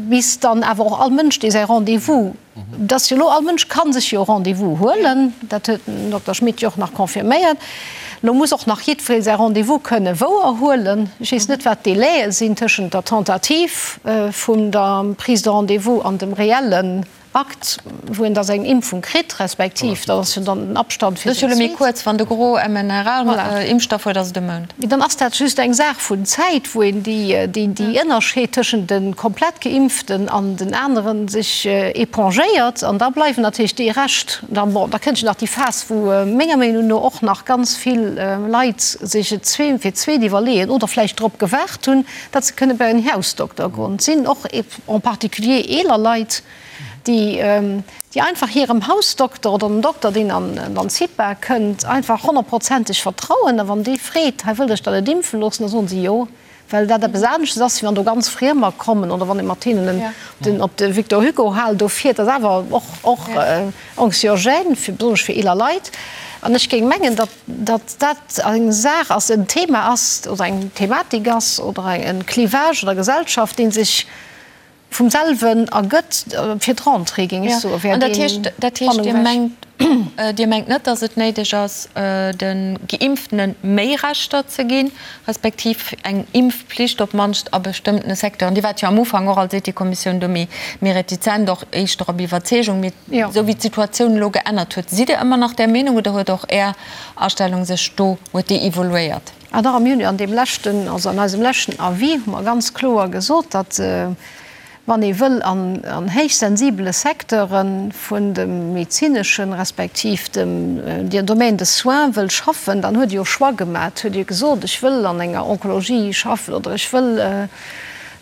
bis dann awer och all Mënsch, dee säi Rendez-vous, dass jo elo all Mënsch ka sech jo e Rendez-vous huelen, dat huet den Dokter Schmit jo och nach confirméiert, elo muss och nach jiddweree säi Rendez-vous kënne wouerhuelen. Ech weess net, wat d'Délaie sinn tëschent der Tentative vun der Prise de rendez-vous an dem reellen Akt, wou een da seng Impfung kritt, respektiv dat ass jo dann den Abstand fir seng zweet. Dat ass jo elo méi kuerz, wann de Gros mRNA-Impfstoff huet, ass et e Mount. Mee dann ass dat just eng Saach vun Zäit, wou een déi Ënnerscheed tëschent de komplett Geimpften an den anere sech épongéiert. An da bleiwen natierlech déi Rescht. Dann, bon, da kënnt jo nach déi Phas, wou menger Meenung no och nach ganz vill Leit sech et fir d'zweet iwwerleeën oder vläicht drop gewaart hunn, datt se kënne bei en Hausdokter goen. Et sinn och en particulier eeler Leit, déi déi einfach hirem Hausdokter oder dem Dokter, deen an an d'CIPA kënnt, einfach honnertprozenteg vertrauen. A wann dee freet, hei wëllt Iech der net impfe loossen, da soen se jo, Well dat eppes aneschtes ass, wéi wann do ganz Friemer kommen oder wann ee mat hinnen den op de Victor Hugo Hal do fiert. Dat ass awer och och anxiogène, fir besonnesch fir eeler Leit. An ech géing mengen, datt datt dat eng Saach ass, en Thema ass oder eng Thematik ass oder en Clivage an der Gesellschaft, dee sech vum selwen ergëtt fir d'Rentrée, géing ech soen, wär An dat heescht, deen dat heescht, Dir Spannung weg. mengt, Dir mengt net, datt et néideg ass, de Geimpftene méi Rechter ze ginn, respektiv eng Impfpflicht op d'mannst a bestëmmtene Secteuren? Dir waart jo am Ufank och als Ethikkommissioun do méi, méi retizent, och éischter op Iwwerzeegung. Mee esou wéi d'Situatioun elo geännert huet, sidd Dir ëmmer nach där Meenung oder huet och Är Astellung sech do, huet déi evoluéiert? Ah dach, mir hunn jo an deem leschten, also an eisem leschten Avis hu mer ganz kloer gesot, datt wann ee wëll an héichsensibele Secteure vun dem medezineschen, respektiv dem Domaine des soins wëll schaffen, dann huet ee jo Choix gemaach, huet ee gesot, ech wëll an enger Onkologie schaffen oder ech wëll,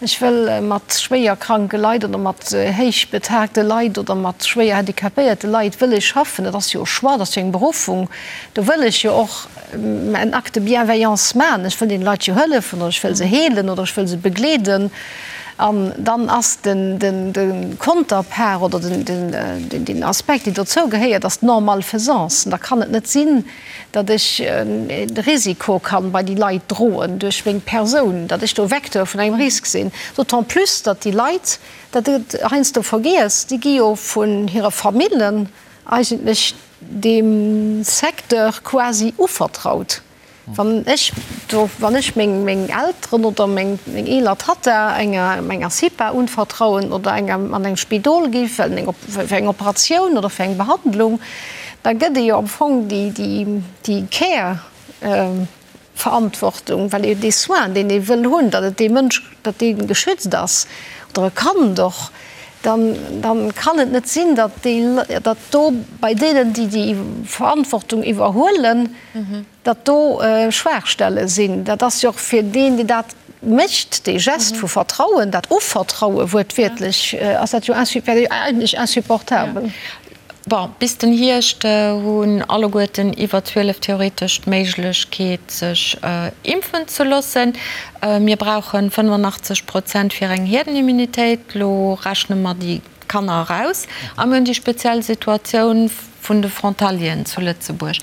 ech wëll mat schwéier kranke Leit oder mat héichbetagte Leit oder mat schwéier handicapéierte Leit wëll ech schaffen. Dat ass jo e Choix, dat ass jo eng Beruffung. Do wëll ech jo och en Acte de bienveillance maachen, ech wëll deene Leit jo hëllefen oder ech wëll se heelen oder ech wëll se begleeden, an dann ass de Konterpart oder den Aspekt, deen dozou gehéiert, ass d'Non-malfaisance. Da kann et net sinn, datt ech de Risiko kann bei déi Leit droen duerch meng Persoun, datt ech do Vecteur vun engem Risk sinn, d'autant plus datt déi Leit, dat gëtt heiansdo vergiess, déi gi jo vun hire Famillen eigentlech deem Secteur quasi uvertraut. Wann ech do, wann ech meng, meng Elteren oder meng, meng eeler Tatta enger, enger CIPA unvertrauen oder enger, an eng Spidol gi fir eng, fir eng Operatioun oder fir eng Behandlung, da gëtt ee jo am Fong déi, déi, déi Care, Verantwortung, well ee dee Soin, deen ee wëll hunn, datt et dee Mënsch, datt dee geschützt ass, oder e Kand och, dann, dann kann et net sinn, datt déi, datt do bei deenen, déi déi Verantwortung iwwerhuelen, datt do Schwaachstelle sinn. Dat ass jo och fir deen, deen dat mécht, dee Geste vu Vertrauen, dat Uvertraue wuertwiertlech, ass dat jo eigentlech insupportabel. Bon, bis den Hierscht hunn alleguerten iwwer 12 theoretesch d'Méiglechkeet sech impfen ze loossen. Mir brauche 85 Prozent fir eng Hierdenimmunitéit. Lo rechne mer déi Kanner eraus a mir hunn déi speziell Situatioun vun de Frontalieren zu Lëtzebuerg.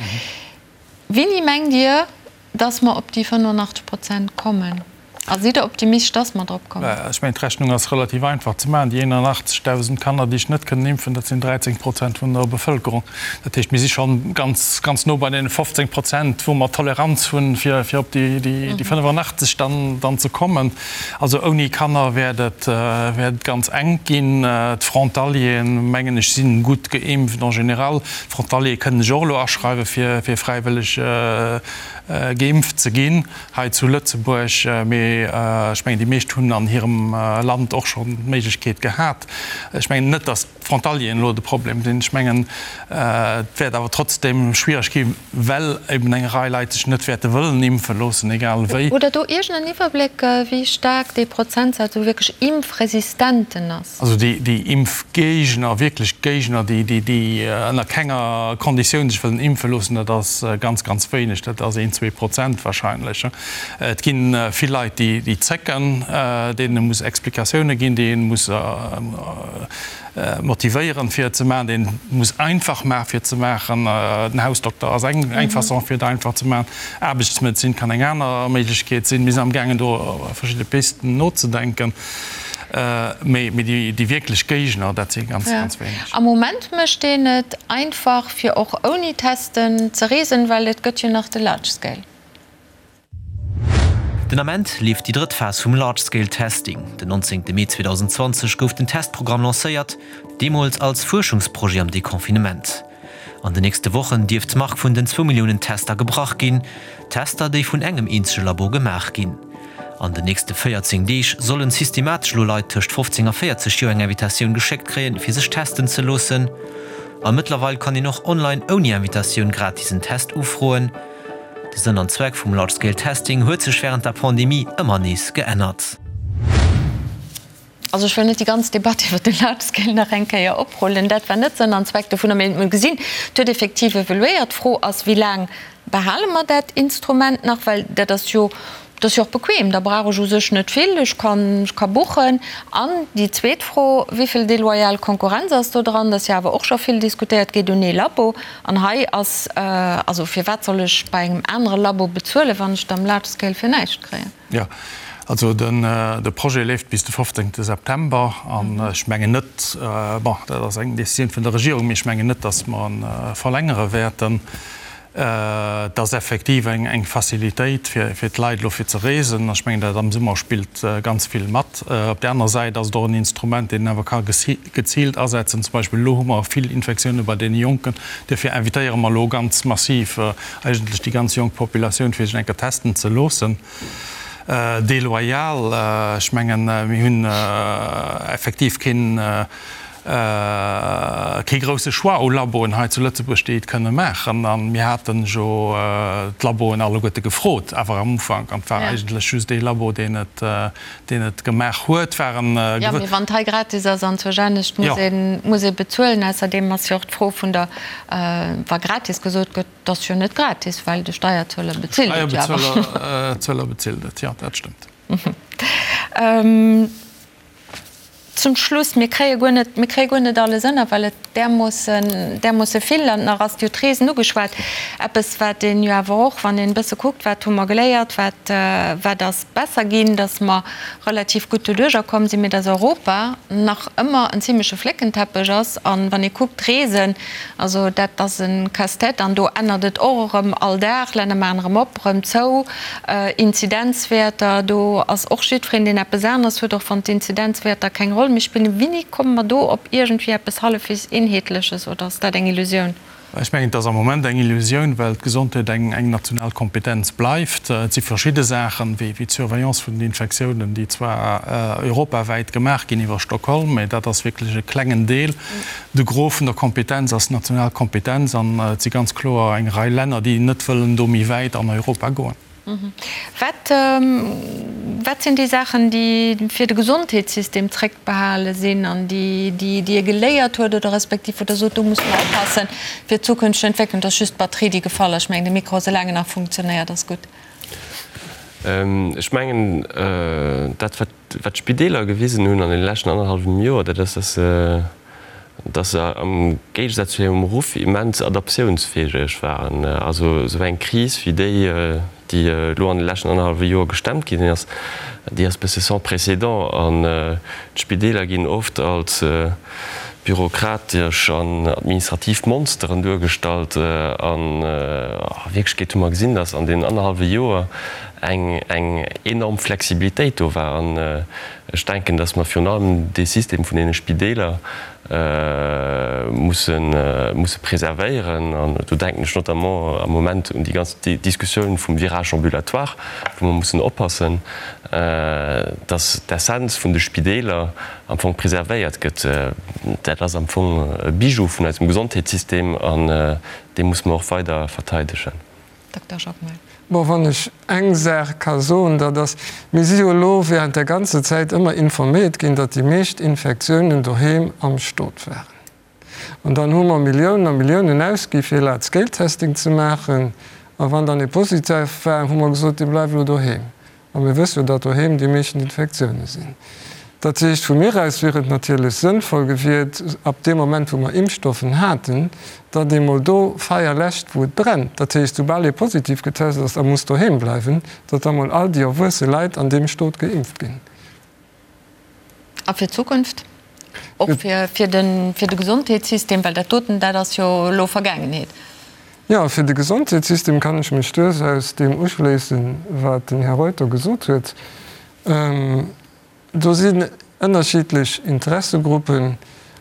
Wéini mengt Dir, dass mer op déi 85 Prozent kommen? A sidd Der optimistesch, dass mer drop kommen? Ech mengen, d'Rechnung ass relativ einfach ze maachen. Déi 81.000 Kanner, déi ech net kënnen impfen, dat sinn 13 Prozent vun der Bevëlkerung. Dat heescht, mir si scho ganz, ganz no bei deene 15 Prozent, wou mer Toleranz hunn, fir op déi 85 dann, dann ze kommen. Also ouni Kanner wäert et, wäert et ganz enk ginn. D'Frontalieren, mengen ech, si gutt geimpft en général. D'Frontaliere kënnen sech och elo aschreiwen, fir fräiwëlleg geimpft ze ginn hei zu Lëtzebuerg. Mee ech mengen, déi meescht hunn an hirem Land och schonn d'Méiglechkeet gehat. Ech mengen net, datt d'Frontalieren elo de Problem sinn. Ech mengen, et wäert awer trotzdeem schwiereg ginn, well eben eng Rei Leit sech net wäerte wëllen impfe loossen, egal wéi. Hutt Der do iergend en Iwwerbléck, wéi staark dee Prozentsaz u wierklech Impfresistenten ass? Also déi Impfgéigner, wierklech Géigner, déi ënner kenger Konditioun sech wëllen impfe loossen, dat ass ganz, ganz wéineg. Dat ass een, 2% wahrscheinlech. Et gi vill Leit, déi zécken, deenen ee muss Explikatioune ginn, déi ee muss motivéieren, fir et ze maachen, déi een muss einfach maachen, fir et ze maachen. Den Hausdokter ass eng Façon, fir et einfach ze maachen. Aarbechtsmedezin kann eng aner Méiglechkeet sinn. Mir sinn amgaangen, do verschidde Pisten nozedenken. Mee déi wierklech Géigner, dat si ganz, ganz wéineg. Am Moment mécht een et einfach, fir och ouni Testen ze reesen, well et gëtt jo nach de Large Scale. Den Ament leeft déi drëtt Phas vum Large Scale Testing. Den 19 Mee 2020 gouf den Testprogramm lancéiert, deemools als Fuerschungsprojet am Deconfinement. An den nächste Wochen dierft d'Mark vun den zwou Milliounen Tester gebrach ginn, Tester, déi vun engem eenzege Labo gemaach ginn. An den nächste 14 Deeg sollen systematesch elo Leit tëscht 15 a 40 Joer eng Invitatioun geschéckt kréien, fir sech testen ze loossen. A mëttlerweil kann een och online ouni Invitatioun gratis en Test ufroen. De Sënn an Zweck vum Large Scale Testing huet sech wärend der Pandemie ëmmer nees geännert. Also ech wëll net déi ganz Debatt iwwert de Large Scale nach eng Kéier oprullen. Dat war net Sënn an Zweck dovunner. Mee mir gesinn, et huet effektiv evoluéiert. D'Fro ass, Wéi laang behale mer dat Instrument nach? Well dat ass jo. Et ass jo och bequem, da brauch ech u sech net vill, ech kann, ech ka buchen. An déi zweet Fro, Wéi vill deloyal Konkurrenz ass do dran? Dat ass jo awer och scho vill diskutéiert, geet un ee Labo. An hei ass, also firwat soll ech bei engem anere Labo bezuelen, wann ech et am Large Scale fir näischt kréien? Jo, also de Projet leeft bis de 15 September an ech mengen net, bon, dat ass eng Décisioun vun der Regierung, mee ech mengen net, datt mer e verlängere wäerten. Et ass effektiv eng Facilitéit fir d'Leit elo fir ze reesen. Ech mengen, dat am Summer spillt ganz vill mat. Op där anerer Säit ass et och en Instrument, deen een awer ka geziilt asetzen. Zum Beispill elo hu mer vill Infektioune bei deene Jonken. Duerfir invitéiere mer elo ganz massiv eigentlech déi ganz jonk Populatioun, fir sech eng Kéier testen ze loossen. Deloyal, ech mengen, mir hunn effektiv keen, Kee grousse Choix u Laboen hei zu Lëtzebuerg, déi et kënne maachen. A mir hate jo d'Laboen alleguerte gefrot, awer am Ufank, an et war eigentlech just ee Labo, deen et, deen et gemaach huet, waren. Jo, mee wann et hei gratis ass an zur anescht muss ee, muss ee bezuelen. Ausserdeem ass jo och d'Fro vun der, wa gratis gesot gëtt, et ass jo net gratis, well de Steierzueler bezilt et jo awer. De Steierzueler bezilt et, jo, dat stëmmt. Zum Schluss, mir kréie guer net, mir kréie guer net alles ënner, well et därmoossen, därmoosse vill an nach ass jo d'Reesen ugeschwat, eppes wat een jo awer och, wann een e bësse kuckt, wat hu mer geléiert, wat, wat ass besser ginn, datt mer relativ gutt doduerjer komm sinn, mee datt Europa nach ëmmer en zimleche Fléckenteppech ass. An wann ee kuckt, d'Reesen, also dat ass e Casse-tête an do ännert et och erëm all Dag, Länner maachen erëm op, erëm zou. Inzidenzwäerter, do ass och jiddwereen, deen eppes aneres huet, och wann d'Inzidenzwäerter keng Roll méi spillen. Wéini komme mer do op iergendwéi eppes hallefwegs Eenheetleches oder ass dat eng Illusioun? Ech mengen, et ass am Moment eng Illusioun, well d'Gesondheet eng national Kompetenz bleift. Et si verschidde Saachen, wéi d'Surveillance vun den Infektiounen, déi zwar europawäit gemaach ginn iwwer Stockholm, mä dat ass wierklech e klengen Deel. De Gros vun der Kompetenz ass national Kompetenz an et si ganz kloer eng Rei Länner, déi net wëllen do méi wäit an Europa goen. Wat, wat sinn déi Saachen, déi fir de Gesondheetssystem zréckbehale sinn an déi, déi ee geléiert huet oder respektiv wou Der sot, do musse mer oppassen fir d'zukünfteg Entwécklung? Et ass just d'Batterie, déi gefall ass. Ech mengen, de Mikro, soulaang en nach funktionéiert, ass gutt. Ech mengen, dat wat Wat d'Spideeler gewisen hunn an deene leschten annerhallwem Joer, dat ass, dass se, dass se am Géigesaz zu hirem Ruff immens adaptiounsfäeg waren. Also esou eng Kris wéi déi, déi elo an de leschten annerhallwe Joer gestemmt ginn ass, déi ass e bësse sans précédent. An d'Spideeler ginn oft als bürokratesch an administrativ Monsteren duergestallt. An a Wierklechkeet hu mer gesinn, dass an deenen annerhallwe Joer eng eng enorm Flexibilitéit do war. An ech denken, dass mer virun allem dee System vun deene Spideeler musse musse preservéieren. An do denken ech notamment am Moment un déi ganz Diskussioun vum Virage ambulatoire, wou mer mussen oppassen, dass d'Essenz vun de Spideeler am Fong preservéiert gëtt. Dat ass am Fong e Bijou vun eisem Gesondheetssystem an dee musse mer och weider verteidegen. Dokter Jacquemart. Bon, wann ech eng Saach ka soen, dat ass, mir si jo elo während der ganzer Zäit ëmmer informéiert ginn, datt déi meescht Infektiounen doheem am Stot waren. An dann hu mer Milliounen a Milliounen ausgi fir Large Scale Testing ze maachen. A wann dann ee positiv war, hu mer gesot, dee bleift elo doheem. A mir wësse jo, datt doheem déi meeschten Infektioune sinn. Dat heescht, vu mir aus wier et natierlech sënnvoll gewiert, ab deem Moment, wou mer Impfstoffen haten, datt ee mol do Feier läscht, wou et brennt. Dat heescht, soubal ee positiv getest ass a muss doheem bleiwen, datt da mol all déi erwuesse Leit an deem Stot geimpft ginn. A fir d'Zukunft? Och fir de Gesondheetssystem, well dat doten, dat ass jo elo Vergaangenheet. Jo, fir de Gesondheetssystem kann ech mech duerchaus deem uschléissen, wat den Här Reuter gesot huet. Do sinn ënnerschiddlech Interessegruppen.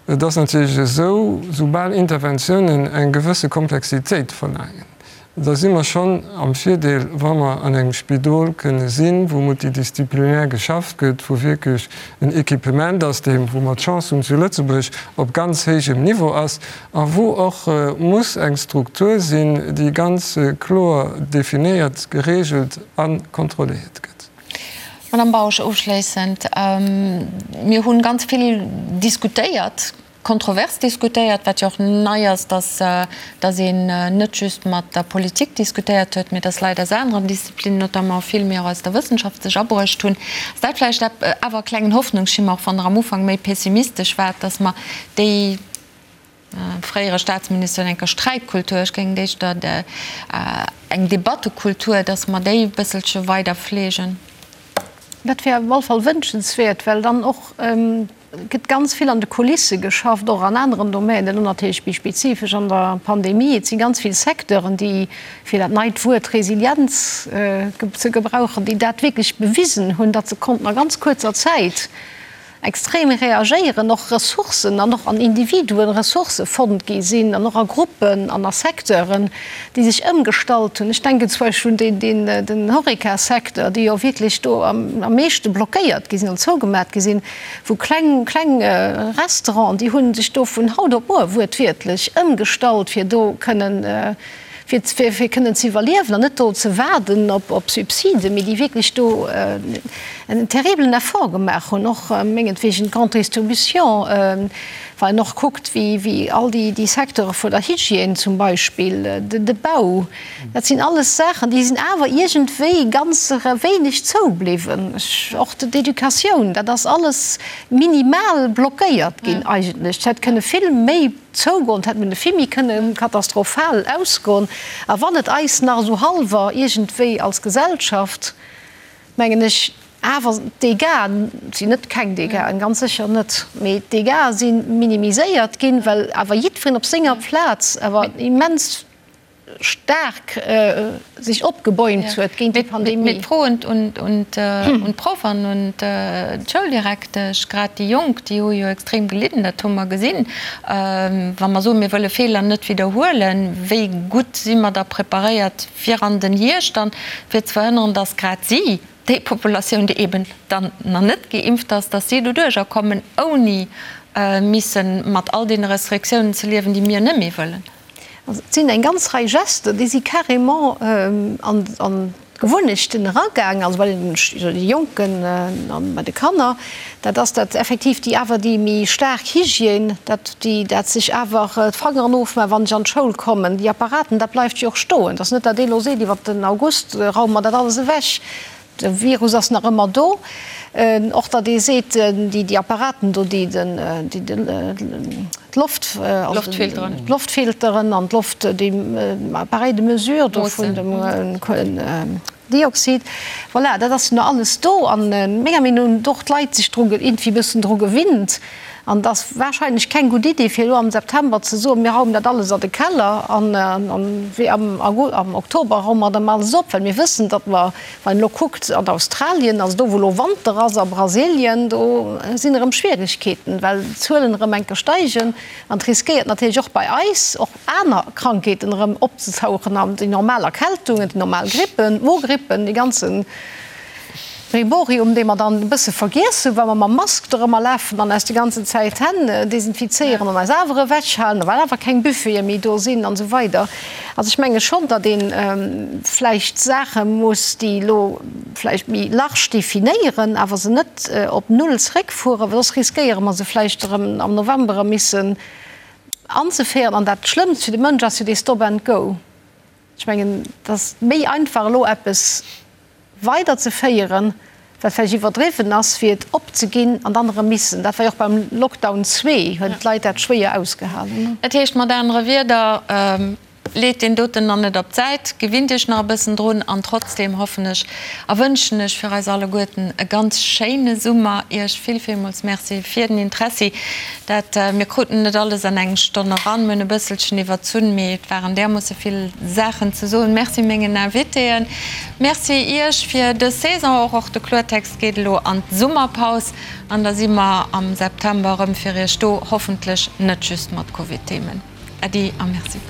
Et ass natierlech esou, soubal Interventiounen eng gewësse Komplexitéit verlaangen, da si mer schonn am Virdeel, wa mer an engem Spidol kënne sinn, wou multidisziplinär geschafft gëtt, wou wierklech en Equipement ass, dee, wou mer d'Chance hunn zu Lëtzebuerg, op ganz héijem Niveau ass a wou och muss eng Struktur sinn, déi ganz kloer definéiert, geregelt a kontrolléiert gëtt. Madame Bausch, ofschléissend, Mir hu ganz vill diskutéiert. Kontrovers diskutéiert, wat jo och nei ass, dass dass een net just mat der Politik diskutéiert huet, mee dass Leit aus aneren Disziplinen, notamment vill méi och aus der Wëssenschaft, sech abruecht hunn. Ass dat vläicht awer e klengen Hoffnungsschimmer, och wann Der am Ufank méi pessimistesch waart, dass mer déi, fréiere Staatsminister huet eng Kéier Sträitkultur, ech géing et éischter eng Debattekultur, dass mer déi e bësselche weider fleegen? Dat wär op alle Fall wënschenswäert, well dann och gëtt ganz vill an de Kulisse geschafft, och an aneren Domänen, elo natierlech méi spezifesch an der Pandemie. Et si ganz vill Secteuren, déi, fir dat neit Wuert Resilienz ze gebrauchen, déi dat wierklech bewisen hunn, datt se konnten a ganz kuerzer Zäit extrem reagéieren, och Ressourcen an och an Individuen Ressourcë fonnt gi sinn an och a Gruppen an a Secteuren, déi sech ëmgestallt hunn. Ech denken zum Beispill un deen, den Horeca-Secteur, déi jo wierklech do am meeschte blockéiert gi sinn an zougemat gi sinn, wou kleng, kleng Restauranten, déi hu sech do vun haut op muer wuertwiertlech ëmgestallt, fir do kënnen, fir, fir kënnen ze iwwerliewen an net do ze waarden op, op Subsiden, mee déi wierklech do en terribelen Effort gemaach hunn, och mengetwegen d'Grande Distribution, Wann een och kuckt, wéi, wéi all déi, déi Secteure vun der Hygiène zum Beispill, de, de Bau, dat sinn alles Saachen, déi sinn awer iergendwéi ganz wéineg zoubliwwen. Och d'Educatioun, dat ass alles minimal blockéiert ginn eigentlech. Et hätt kënne vill méi zougoen, et hätt mënne vill méi kënne katastrophal ausgoen. A wann et eis nach esou hallwer iergendwéi als Gesellschaft, mengen ech, awer d'Dégâts sinn net keng Dégâten, ganz sécher net, mee d'Dégâts si minimiséiert ginn, well awer jiddwereen op senger Plaz awer immens staark sech opgebäumt huet géint déi Pandemie. Mee d'Fro un d'Proff an un d'Schouldirektesch, grad déi Jonk, déi hu jo extrem gelidden, dat hu mer gesinn. Wa mer soen, mir wëlle Feeler net widderhuelen, wéi gutt si mer da preparéiert fir an den Hierscht dann, fir ze verhënneren, datt grad si, déi Populatioun, déi eben dann nach net geimpft ass, datt si doduercher kommen, ouni misse mat all deene Restriktiounen ze liewen, déi mir net méi wëllen. Also et sinn eng ganz Rei Gesten, déi si carrément an d'Gewunnechten eragaangen, also bei den Jonken an bei de Kanner. Dat ass dat effektiv déi awer déi méi staark Hygiène, dat déi dat sech awer d'Fangeren ofmaachen, wann ech an d'Schoul kommen. Déi Apparaten, dat bleift jo och stoen. Et ass net, datt ee elo seet, iwwer den August raume mer dat alles ewech. De Virus ass nach ëmmer do. Och datt ee seet, déi déi Apparaten do, déi den déi den d'Loft, also d'Loftfilteren an d'Loft, déi Appareils de mesure do vun dem Dioxid, voilà, dat ass jo nach alles do. An menger Meenung no hunn och d'Leit sech dru iergendwéi e bëssen dru gewinnt. An et ass wahrscheinlech keng gutt Idee, fir elo am September ze soen, mir raumen dat alles a de Keller an wéi am am Oktober raume mer dann alles op, well mir wëssen, datt mer, wann een elo kuckt an Australien, also do wou elo Wanter ass, a Brasilien, do sinn erëm Schwieregkeeten, well d'Zuelen erëm enke steigen. An et riskéiert natierlech och bei eis och aner Krankheeten erëm opzetauchen an déi normal Erkältungen, déi normal Grippen, d'Mogrippen, dee ganze Brimborium, dee mer dann e bësse vergiess hunn, well mer mam Mask dorëmmer lafen an eis déi ganzen Zäit d'Hänn desinfizéieren an eis awer ewechhalen, well awer keng Buffete méi do sinn an esou weider. Also ech menge schonn, datt ee vläicht Saache muss, déi elo vläicht méi large definéieren, awer se net op null zeréckfueren, well soss riskéiere mer se vläicht erëm am November erëm missen anzeféieren. An dat Schlëmmst fir de Mënsch ass jo dee Stop and go. Ech mengen, et ass méi einfach elo eppes weiderzeféieren, wat vläicht iwwerdriwwen ass, wéi et opzeginn an dann erëm missen. Dat war jo och beim Lockdown zwee, hunn d'Leit dat schwéier ausgehalen. Dat heescht mat anere Wierder, Leet deen doten nach net op d'Säit, gewinnt Iech nach e bëssen drun an trotzdem hoffen ech a wënschen ech fir eis alleguerten e ganz schéine Summer. Iech vill villmools Merci fir den Interessi. Dat, mir kruten net alles an eng Stonn eran, mir hunn e bësselchen iwwerzunn, mee et waren därmoosse vill Saachen ze soen. Merci mengen Invitéen, Merci Iech fir dës Saison och. Och de Kloertext geet elo an d'Summerpaus an da si mer am September erëm fir Iech do, hoffentlech net just mat Covid-Themen. Äddi a Merci.